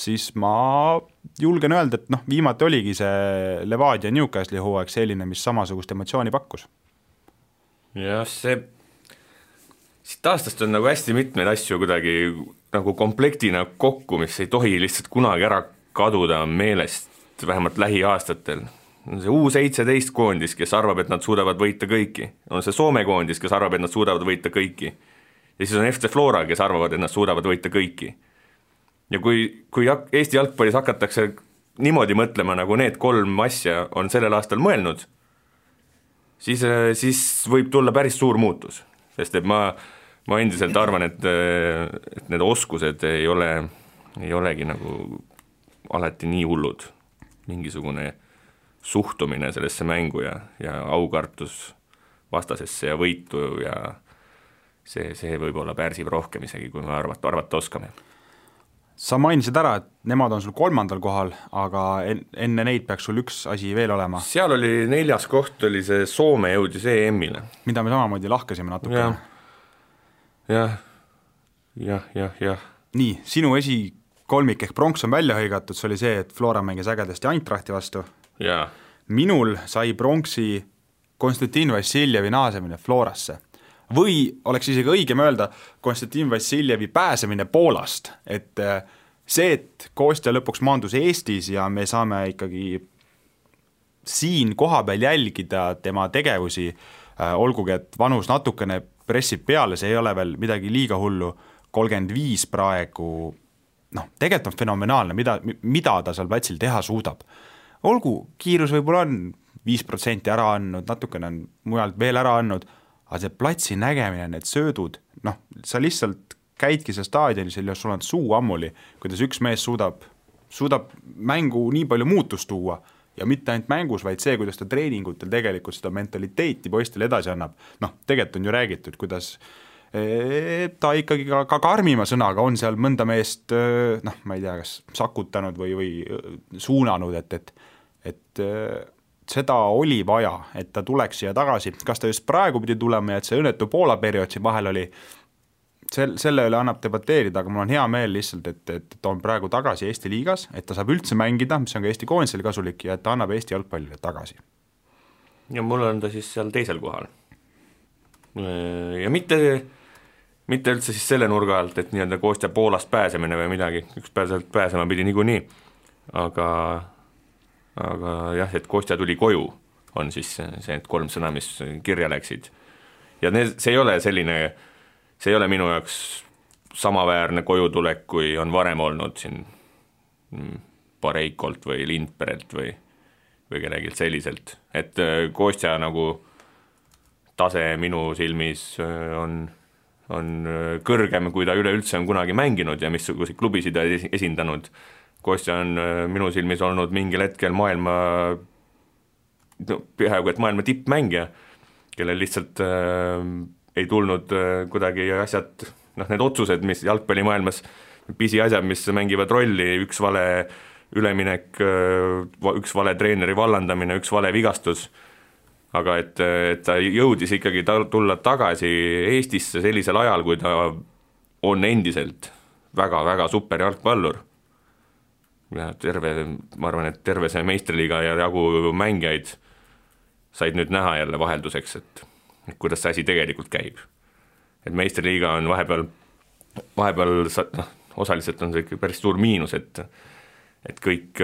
siis ma julgen öelda, et viimati oligi see Levadia Newcastle'i hooaeg selline, mis samasugust emotsiooni pakkus. Jah, siit aastast on nagu hästi mitmeid asju kuidagi nagu komplektina kokku, mis ei tohi lihtsalt kunagi ära kaduda meelest, vähemalt lähiaastatel. On see U17 koondis, kes arvab, et nad suudavad võita kõiki. On see Soome koondis, kes arvab, et nad suudavad võita kõiki. Ja siis on FC Flora, kes arvavad, et nad suudavad võita kõiki. Ja kui Eesti jalgpallis hakatakse niimoodi mõtlema, nagu need 3 asja on sellel aastal mõelnud, siis võib tulla päris suur muutus. Sest et ma endiselt arvan, et need oskused ei olegi nagu alati nii hullud. Mingisugune suhtumine sellesse mängu ja aukartus vastasesse ja võitu ja see võib-olla pärsib rohkem isegi, kui me arvata oskame. Sa mainisid ära, et nemad on sul 3. kohal, aga enne neid peaks sul üks asi veel olema. Seal oli 4. koht, oli see Soome jõudis EM-ile. Mida me samamoodi lahkasime natuke. Jah. Nii, sinu esikolmik ehk pronks on välja hõigatud, see oli see, et Flora mängis ägedasti Eintrachti vastu. Ja. Minul sai pronksi Konstantin Vassiljevi naasemine Florasse või oleks isegi õigem öelda Konstantin Vassiljevi pääsemine Poolast, et see, et Kostja lõpuks maandus Eestis ja me saame ikkagi siin kohapeal jälgida tema tegevusi, olgugi, et vanus natukene pressib peale, see ei ole veel midagi liiga hullu, 35 praegu, tegelikult on fenomenaalne, mida ta seal platsil teha suudab. Olgu, kiirus võib-olla on 5% ära andnud, natukene on mujalt veel ära andnud, aga see platsi nägemine, need söödud, noh, sa lihtsalt käidki seal staadionis ja sul on suu ammuli, kuidas üks mees suudab mängu nii palju muutust tuua ja mitte ainult mängus, vaid see, kuidas ta treeningutel tegelikult seda mentaliteeti poistele edasi annab. Noh, tegelikult on ju räägitud, kuidas ta ikkagi ka karmima sõnaga on seal mõnda meest, noh, ma ei tea, kas sakutanud või suunanud, et seda oli vaja, et ta tuleks siia tagasi. Kas ta just praegu pidi tulema ja et see õnnetu Poola periood siin vahel oli, selle üle annab debateerida, aga mul on hea meel lihtsalt, et ta on praegu tagasi Eesti liigas, et ta saab üldse mängida, mis on ka Eesti koondisele kasulik ja et ta annab Eesti jalgpallile tagasi. Ja mul on ta siis seal teisel kohal. Ja mitte üldse siis selle nurga alt, et nii-öelda Kostja Poolast pääsemine või midagi, üks pääsema pidi niikuinii, aga jah, et Kostja tuli koju, on siis see 3 sõna, mis kirja läksid. Ja see ei ole minu jaoks samaväärne kojutulek, kui on varem olnud siin Pareikolt või Lindperelt või kellegilt selliselt. Et Kostja nagu tase minu silmis on kõrgem, kui ta üleüldse on kunagi mänginud ja missuguseid klubisid esindanud. Kostja on minu silmis olnud mingil hetkel peaaegu et maailma tippmängija, kellel lihtsalt ei tulnud kuidagi asjad, need otsused, mis jalgpallimaailmas, pisiasjad, mis mängivad rolli, üks vale üleminek, üks vale treeneri vallandamine, üks vale vigastus, aga et ta jõudis ikkagi tulla tagasi Eestisse sellisel ajal, kui ta on endiselt väga-väga super jalgpallur. Ja ma arvan, et terve see meistriliiga ja jagu mängijaid said nüüd näha jälle vahelduseks, et kuidas see asi tegelikult käib. Et meistriliiga on vahepeal osaliselt on see päris suur miinus, et kõik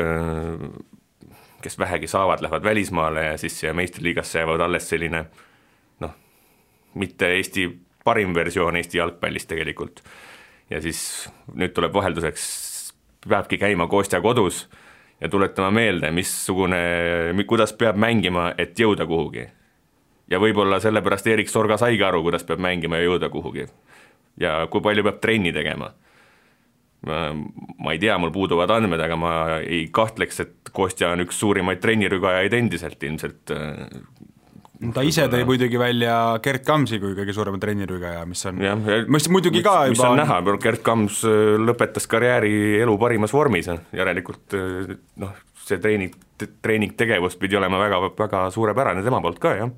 kes vähegi saavad, lähevad välismaale ja siis meistriliigasse jäävad alles selline mitte Eesti parim versioon Eesti jalgpallist tegelikult. Ja siis nüüd tuleb vahelduseks, peabki käima Kostja kodus ja tuletama meelde, kuidas peab mängima, et jõuda kuhugi. Ja võib-olla sellepärast Erik Sorga saigi aru, kuidas peab mängima ja jõuda kuhugi. Ja kui palju peab trenni tegema. Ma ei tea, mul puuduvad andmed, aga ma ei kahtleks, et Kostja on üks suurimaid trennirügajaid endiselt ilmselt. Ta ise tõi muidugi välja Gert Kamsi kui kõige suurema trennirügaja, mis on muidugi ka mis on näha, Gert Kams lõpetas karjääri elu parimas vormis, järelikult see treeningtegevus pidi olema väga, väga suurepärane tema poolt ka, jah.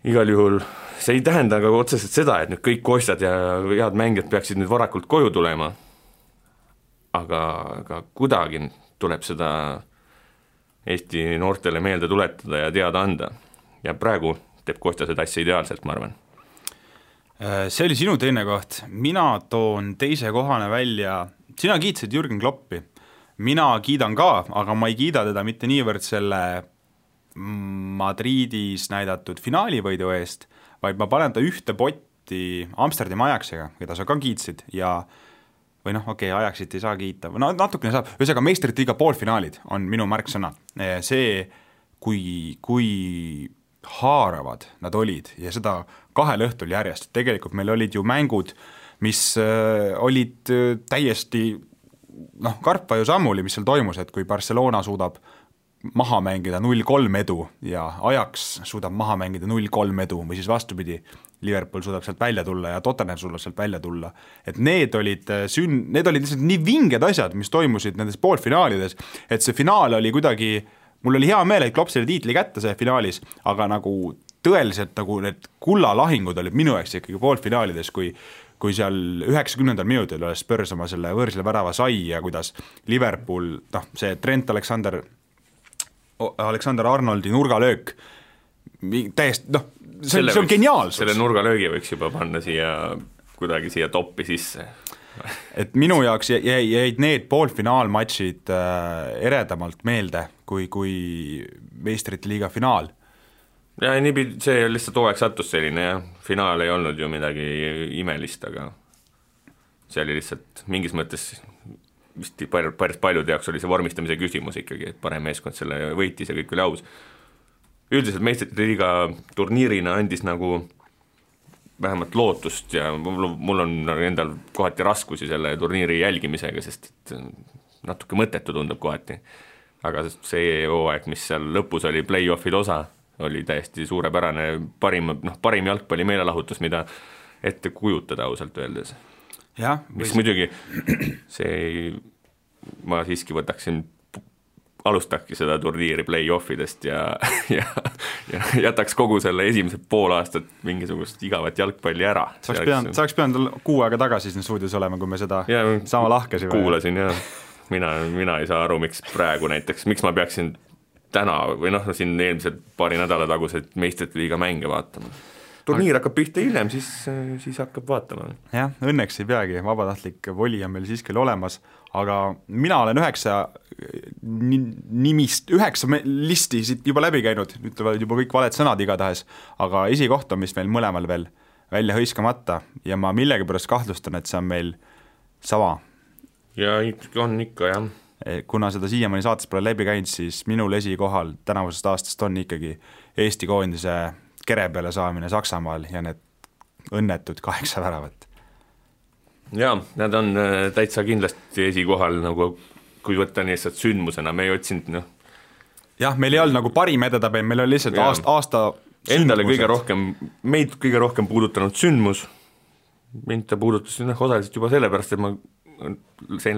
Igal juhul see ei tähenda aga otseselt seda, et nüüd kõik Kostjad ja head mängijad peaksid nüüd varakult koju tulema, aga kuidagi tuleb seda Eesti noortele meelde tuletada ja teada anda. Ja praegu teeb Kostja seda asja ideaalselt, ma arvan. See oli sinu teine koht. Mina toon teise kohane välja. Sina kiitsid Jürgen Kloppi. Mina kiidan ka, aga ma ei kiida teda mitte niivõrd selle Madridis näidatud finaalivõidu eest, vaid ma panen ta ühte potti Amsterdami Ajaxiga, keda sa ka kiitsid ja või Ajaxit ei saa kiita, natukene saab, ühesõnaga meistrite liiga poolfinaalid on minu märksõna. See, kui haaravad nad olid ja seda 2 õhtul järjest, tegelikult meil olid ju mängud, mis olid täiesti karpa ju sammuli, mis seal toimus, et kui Barcelona suudab maha mängida 0-3 edu ja Ajax suudab maha mängida 0-3 edu või siis vastupidi, Liverpool suudab sealt välja tulla ja Tottenham suudab sealt välja tulla. Et need olid lihtsalt nii vinged asjad, mis toimusid nendes poolfinaalides, et see finaal oli kuidagi, mul oli hea meel, et Klopp selle tiitli kätte see finaalis, aga nagu tõeliselt nagu need kullalahingud olid minu jaoks ikkagi poolfinaalides, kui seal 90. minutil oli Spurs oma selle võõrsile värava sai ja kuidas Liverpool, see Trent Alexander-Arnoldi nurgalöök täiesti, see on geniaalsus. Selle nurgalöögi võiks juba panna kuidagi siia toppi sisse. Et minu jaoks jäid need poolfinaalmatšid eredamalt meelde kui meistrite liiga finaal. Ja see lihtsalt hooaeg sattus selline ja finaal ei olnud ju midagi imelist, aga see oli lihtsalt mingis mõttes vist päris paljude jaoks oli see vormistamise küsimus ikkagi, et parem meeskond selle võitis ja kõik oli aus. Üldiselt meistrite liiga turniirina andis nagu vähemalt lootust ja mul on endal kohati raskusi selle turniiri jälgimisega, sest et natuke mõttetu tundub kohati. Aga see hooaeg, mis seal lõpus oli play-offid osa, oli täiesti suurepärane, parim jalgpalli meelelahutus, mida ette kujutada ausalt öeldes. Ja, mis muidugi ma siiski võtaksin alustakki seda turniiri play-offidest ja jätaks kogu selle esimesed pool aastat mingisugust igavat jalgpalli ära. Saaks pidanud kuu aega tagasi siin stuudios olema, kui me seda sama lahkasime. Kuulasin ja mina ei saa aru, miks praegu näiteks, miks ma peaksin täna või siin eelmised paari nädala tagused meistrite liiga mänge vaatama. Turniir hakkab pihta hiljem, siis hakkab vaatama. Jah, õnneks ei peagi, vabatahtlik voli on meil siiski olemas, aga mina olen 9 listi siit juba läbi käinud, ütlevad juba kõik valed sõnad igatahes, aga esikoht on, mis meil mõlemal veel välja hõiskamata ja ma millegipärast kahtlustan, et see on meil sama. Ja on ikka, jah. Kuna seda siiamaani saates pole läbi käinud, siis minul esikohal tänavusest aastast on ikkagi Eesti koondise kere peale saamine Saksamaal ja need õnnetud 8 väravat. Jaa, nad on täitsa kindlasti esikohal, nagu kui võtta lihtsalt sündmusena, me ei otsinud, Jah, meil ei olnud nagu parim edetabel, meil oli lihtsalt aasta endale meid kõige rohkem puudutanud sündmus, mind ta puudutas osaliselt juba sellepärast, et ma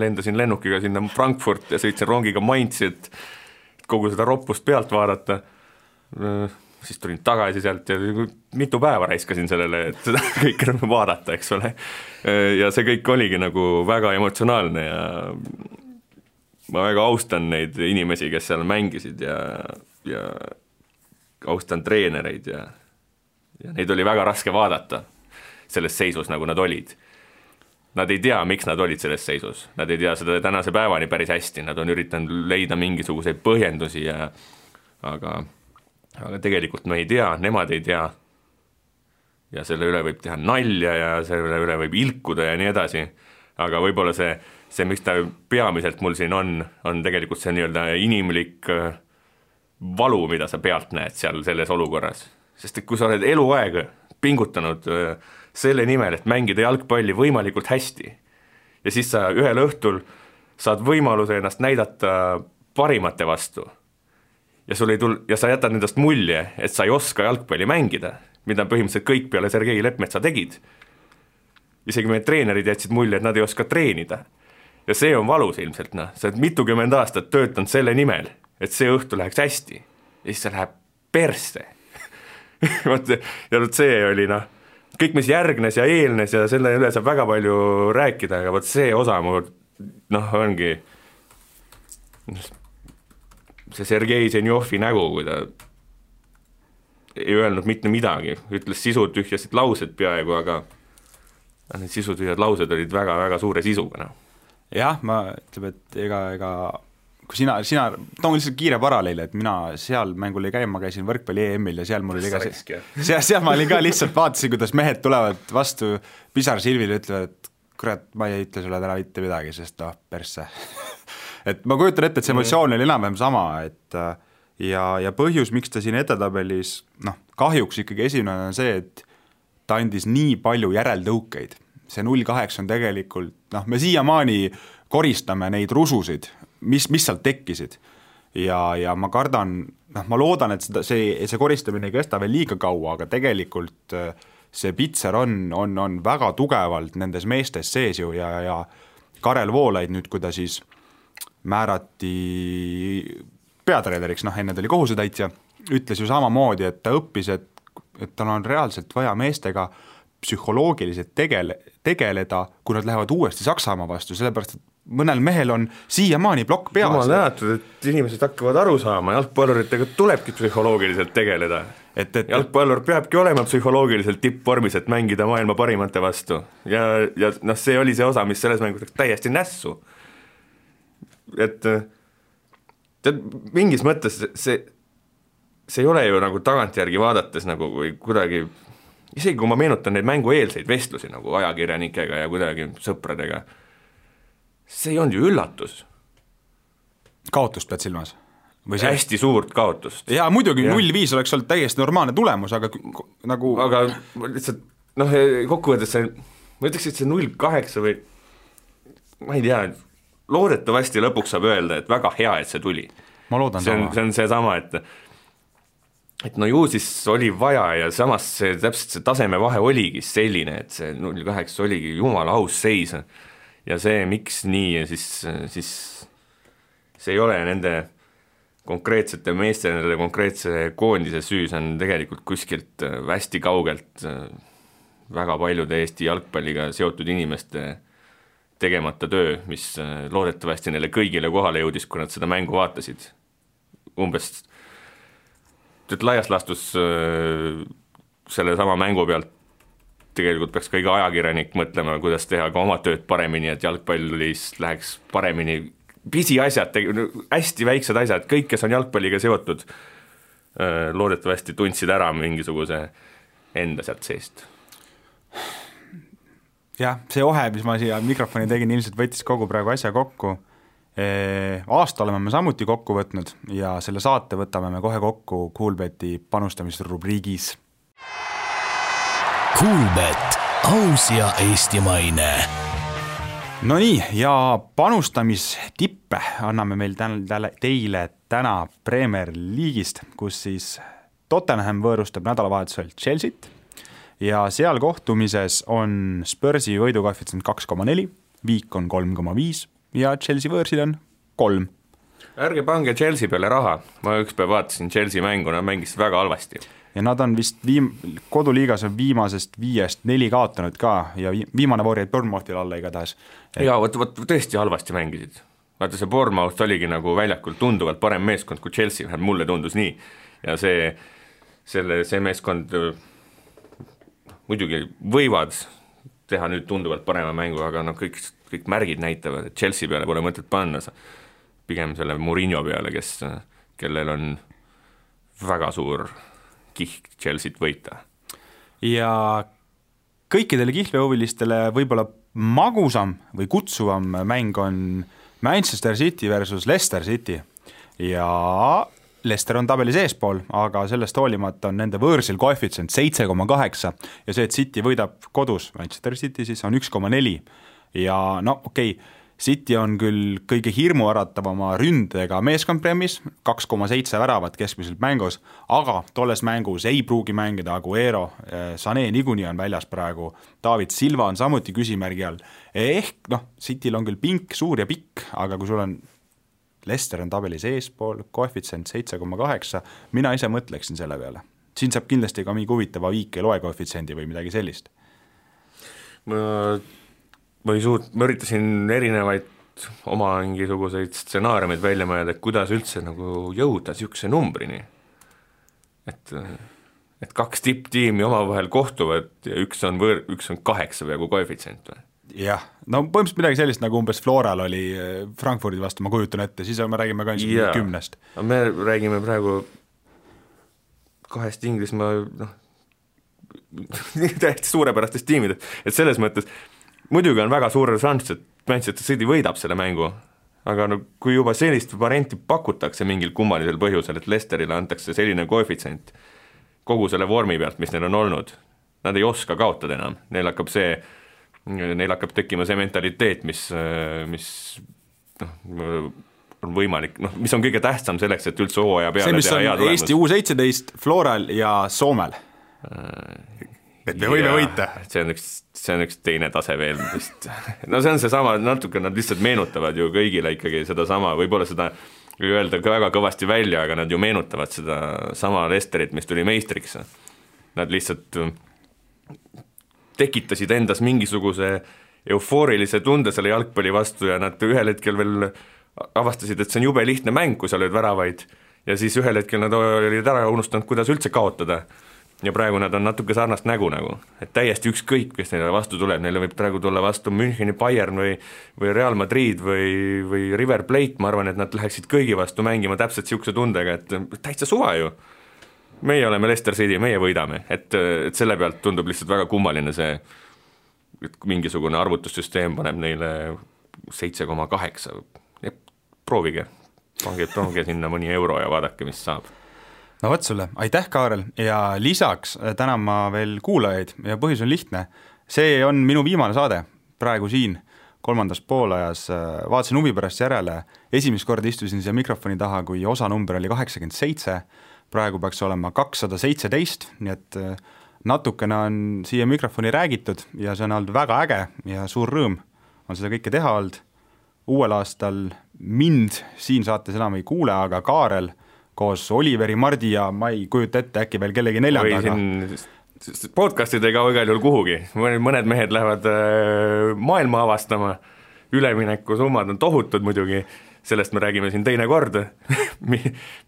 lendasin lennukiga sinna Frankfurt ja sõitsin rongiga Mainzi, et kogu seda roppust pealt vaadata, siis tulin tagasi sealt ja mitu päeva raiskasin sellele, et seda kõike vaadata, eks ole. Ja see kõik oligi nagu väga emotsionaalne ja ma väga austan neid inimesi, kes seal mängisid ja austan treenereid ja neid oli väga raske vaadata selles seisus, nagu nad olid. Nad ei tea, miks nad olid selles seisus. Nad ei tea seda tänase päevani päris hästi. Nad on üritanud leida mingisuguseid põhjendusi aga tegelikult me ei tea, nemad ei tea ja selle üle võib teha nalja ja selle üle võib ilkuda ja nii edasi, aga võib-olla see miks ta peamiselt mul siin on tegelikult see nii-öelda inimlik valu, mida sa pealt näed seal selles olukorras, sest et kui sa oled eluaeg pingutanud selle nimel, et mängida jalgpalli võimalikult hästi ja siis sa ühel õhtul saad võimaluse ennast näidata parimate vastu ja sa jätad nendest mulje, et sa ei oska jalgpalli mängida, mida põhimõtteliselt kõik peale Sergei Lepmetsa tegid. Isegi meie treenerid jätsid mulje, et nad ei oska treenida. Ja see on valus ilmselt, sa oled mitukümmend aastat töötanud selle nimel, et see õhtu läheks hästi. Ja siis see läheb persse. ja see oli kõik, mis järgnes ja eelnes ja selle üle saab väga palju rääkida, aga see osa mul ongi see Sergei Zenjovi nägu, kui ta ei öelnud mitte midagi, ütles sisutühjasid laused peaaegu, aga need sisutühjad laused olid väga-väga suure sisuga. Jah, ma ütleb, et ega kui sina toon lihtsalt kiire paralleeli, et mina seal mängul ei käi, ma käisin võrkpalli EM-il ja seal mul oli ka seal ma olin ka lihtsalt vaatasin, kuidas mehed tulevad vastu pisarsilvile ja ütlevad, et kurat, ma ei ütle sulle täna mitte midagi, sest persse et ma kujutan ette, et see emotsioon oli enam-vähem sama, et ja põhjus, miks ta siin edetabelis, kahjuks ikkagi esimene on see, et ta andis nii palju järeldõukeid. See 0-8 on tegelikult, me siiamaani koristame neid rususid, mis sealt tekkisid. Ja ma kardan, ma loodan, et see koristamine ei kesta veel liiga kaua, aga tegelikult see pitser on väga tugevalt nendes meestes sees ju ja Karel Voolaid nüüd, kui ta siis määrati peatreeneriks, enne ta oli kohusetäitja, ütles ju samamoodi, et ta õppis, et tal on reaalselt vaja meestega psühholoogiliselt tegeleda, kui nad lähevad uuesti Saksamaa vastu, sellepärast, et mõnel mehel on siiamaani plokk peas. Jumal näatud, et inimesed hakkavad aru saama, jalgpalluritega tulebki psühholoogiliselt tegeleda. Jalgpallur peabki olema psühholoogiliselt tippvormis, et mängida maailma parimate vastu. Ja see oli see osa, mis selles mängus täiesti nässu. Et mingis mõttes see ei ole ju nagu tagantjärgi vaadates nagu või kuidagi, isegi kui ma meenutan neid mängueelseid vestlusi nagu ajakirjanikega ja kuidagi sõpradega, see ei olnud ju üllatus. Kaotust pead silmas? Hästi suurt kaotust. Jaa, muidugi 0-5 oleks olnud täiesti normaalne tulemus, aga nagu... Aga lihtsalt, kokkuvõttes see, ma ütleks, et see 0-8 või ma ei tea, loodetavasti lõpuks saab öelda, et väga hea, et see tuli. Ma loodan see on see sama, et no ju siis oli vaja ja samas see, täpselt see tasemevahe oligi selline, et see 0-8 oligi jumala aus seis ja see, miks nii ja siis see ei ole nende konkreetsete meeste, nende konkreetse koondise süü, see on tegelikult kuskilt hästi kaugelt väga paljude Eesti jalgpalliga seotud inimeste tegemata töö, mis loodetavasti neile kõigile kohale jõudis, kui nad seda mängu vaatasid. Umbes laias laastus selle sama mängu pealt tegelikult peaks ka iga ajakirjanik mõtlema, kuidas teha ka oma tööd paremini, et jalgpallis läheks paremini. Pisiasjad, hästi väiksed asjad, kõik, kes on jalgpalliga seotud, loodetavasti tundsid ära mingisuguse enda sealt seest. Jah, see ohe, mis ma siia mikrofoni tegin, ilmselt võttis kogu praegu asja kokku. Aasta oleme me samuti kokku võtnud ja selle saate võtame me kohe kokku Coolbeti panustamisrubriigis. Coolbet, aus ja eestimaine. No nii, ja panustamistippe anname meil teile täna Premier League'ist, kus siis Tottenham võõrustab nädalavahetusel Chelsea't ja seal kohtumises on Spursi võidukoefitsient 2,4, Viik on 3,5 ja Chelsea võõrsil on 3. Ärge pange Chelsea peale raha, ma ükspäev vaatasin Chelsea mängu, nad mängisid väga halvasti. Ja nad on vist koduliigas on viimasest 5-4 kaotanud ka ja viimane voor jäid Bournemouthil alla igatahes. Jaa, võt tõesti halvasti mängisid. Vaata see Bournemouth oligi nagu väljakul tunduvalt parem meeskond kui Chelsea, mulle tundus nii. Ja see meeskond muidugi võivad teha nüüd tunduvalt parema mängu, aga no kõik märgid näitavad, et Chelsea peale pole mõtet panna. Pigem selle Mourinho peale, kellel on väga suur kihk Chelsea't võita. Ja kõikidele kihlvehuvilistele võib-olla magusam või kutsuvam mäng on Manchester City versus Leicester City ja Leicester on tabelis eespool, aga sellest hoolimata on nende võõrsil koefitsient 7,8 ja see, et City võidab kodus, Manchester City siis on 1,4 ja no okei, City on küll kõige hirmuäratavama ründega meeskond Premis, 2,7 väravat keskmiselt mängus, aga tolles mängus ei pruugi mängida Aguero, Sané niikuinii on väljas praegu, David Silva on samuti küsimärgi all. Ehk Cityl on küll pink, suur ja pikk, aga kui sul on Leicester on tabelis eespool, koefitsient 7,8, mina ise mõtleksin selle peale. Siin saab kindlasti ka mingi huvitava Viik ei loe koefitsiendi või midagi sellist. Ma üritasin erinevaid oma mingisuguseid stsenaariumeid välja mõelda, et kuidas üldse nagu jõuda sihukese numbrini. Et 2 tipptiimi omavahel kohtuvad ja üks on 8 peaaegu koefitsient või? Jah, no põhimõtteliselt midagi sellist nagu umbes Floral oli Frankfurdi vastu, ma kujutan ette, siis me räägime ka 10. Me räägime praegu 2 Inglismaa täiesti suurepärastest tiimidest, et selles mõttes muidugi on väga suur šanss, et Manchester City võidab selle mängu, aga kui juba sellist varianti pakutakse mingil kummalisel põhjusel, et Leicesterile antakse selline koefitsient kogu selle vormi pealt, mis neil on olnud, nad ei oska kaotada enam, neil hakkab tekkima see mentaliteet, mis on võimalik, mis on kõige tähtsam selleks, et üldse hooaja peale see, mis on Eesti U17, Floral ja Soomel. Et me võime võita. See on üks teine tase veel vist. No see on see sama, natuke nad lihtsalt meenutavad ju kõigile ikkagi seda sama, võib-olla seda ei öelda väga kõvasti välja, aga nad ju meenutavad seda sama Leicesterit, mis tuli meistriks. Nad lihtsalt tekitasid endas mingisuguse eufoorilise tunde selle jalgpalli vastu ja nad ühel hetkel veel avastasid, et see on jube lihtne mäng, kui sa lööd väravaid ja siis ühel hetkel nad olid ära unustanud, kuidas üldse kaotada. Ja praegu nad on natuke sarnast nägu, et täiesti ükskõik, kes neile vastu tuleb, neile võib praegu tulla vastu Müncheni Bayern või Real Madrid või River Plate, ma arvan, et nad läheksid kõigi vastu mängima täpselt sihukese tundega, et täitsa suva ju. Meie oleme Leicester City, meie võidame, et selle pealt tundub lihtsalt väga kummaline see, et mingisugune arvutussüsteem paneb neile 7,8. Proovige, pange sinna mõni euro ja vaadake, mis saab. No võt sulle, aitäh Kaarel ja lisaks tänan ma veel kuulajaid ja põhjus on lihtne. See on minu viimane saade praegu siin kolmandas poolajas, vaatasin huvi pärast järele, esimest korda istusin siia mikrofoni taha, kui osa number oli 87, praegu peaks olema 217, nii et natukene on siia mikrofoni räägitud ja see on olnud väga äge ja suur rõõm on seda kõike teha olnud. Uuel aastal mind siin saates enam ei kuule, aga Kaarel koos Oliveri, Mardi ja ma ei kujuta ette äkki veel kellegi neljandaga. Podcastid ei kao igal juhul kuhugi, mõned mehed lähevad maailma avastama, ülemineku summad on tohutud muidugi, sellest me räägime siin teine kord,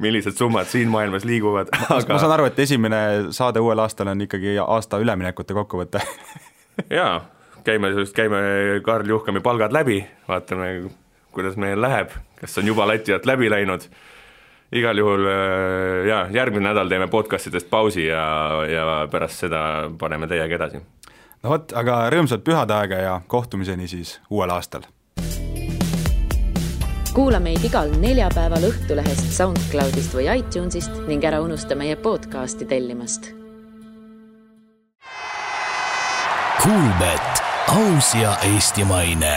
millised summad siin maailmas liiguvad. Aga... Ma saan aru, et esimene saade uuel aastal on ikkagi aasta üleminekute kokkuvõte. Jaa, käime Karl Juhkami palgad läbi, vaatame, kuidas meil läheb, kas on juba lati alt läbi läinud. Igal juhul järgmine nädal teeme podcastidest pausi ja pärast seda paneme teiega edasi. No võt, aga rõõmsat pühadaega ja kohtumiseni siis uuel aastal. Kuula meid igal neljapäeval Õhtulehest, SoundCloudist või iTunesist ning ära unusta meie podcasti tellimast. Kuulbet, aus ja eestimaine.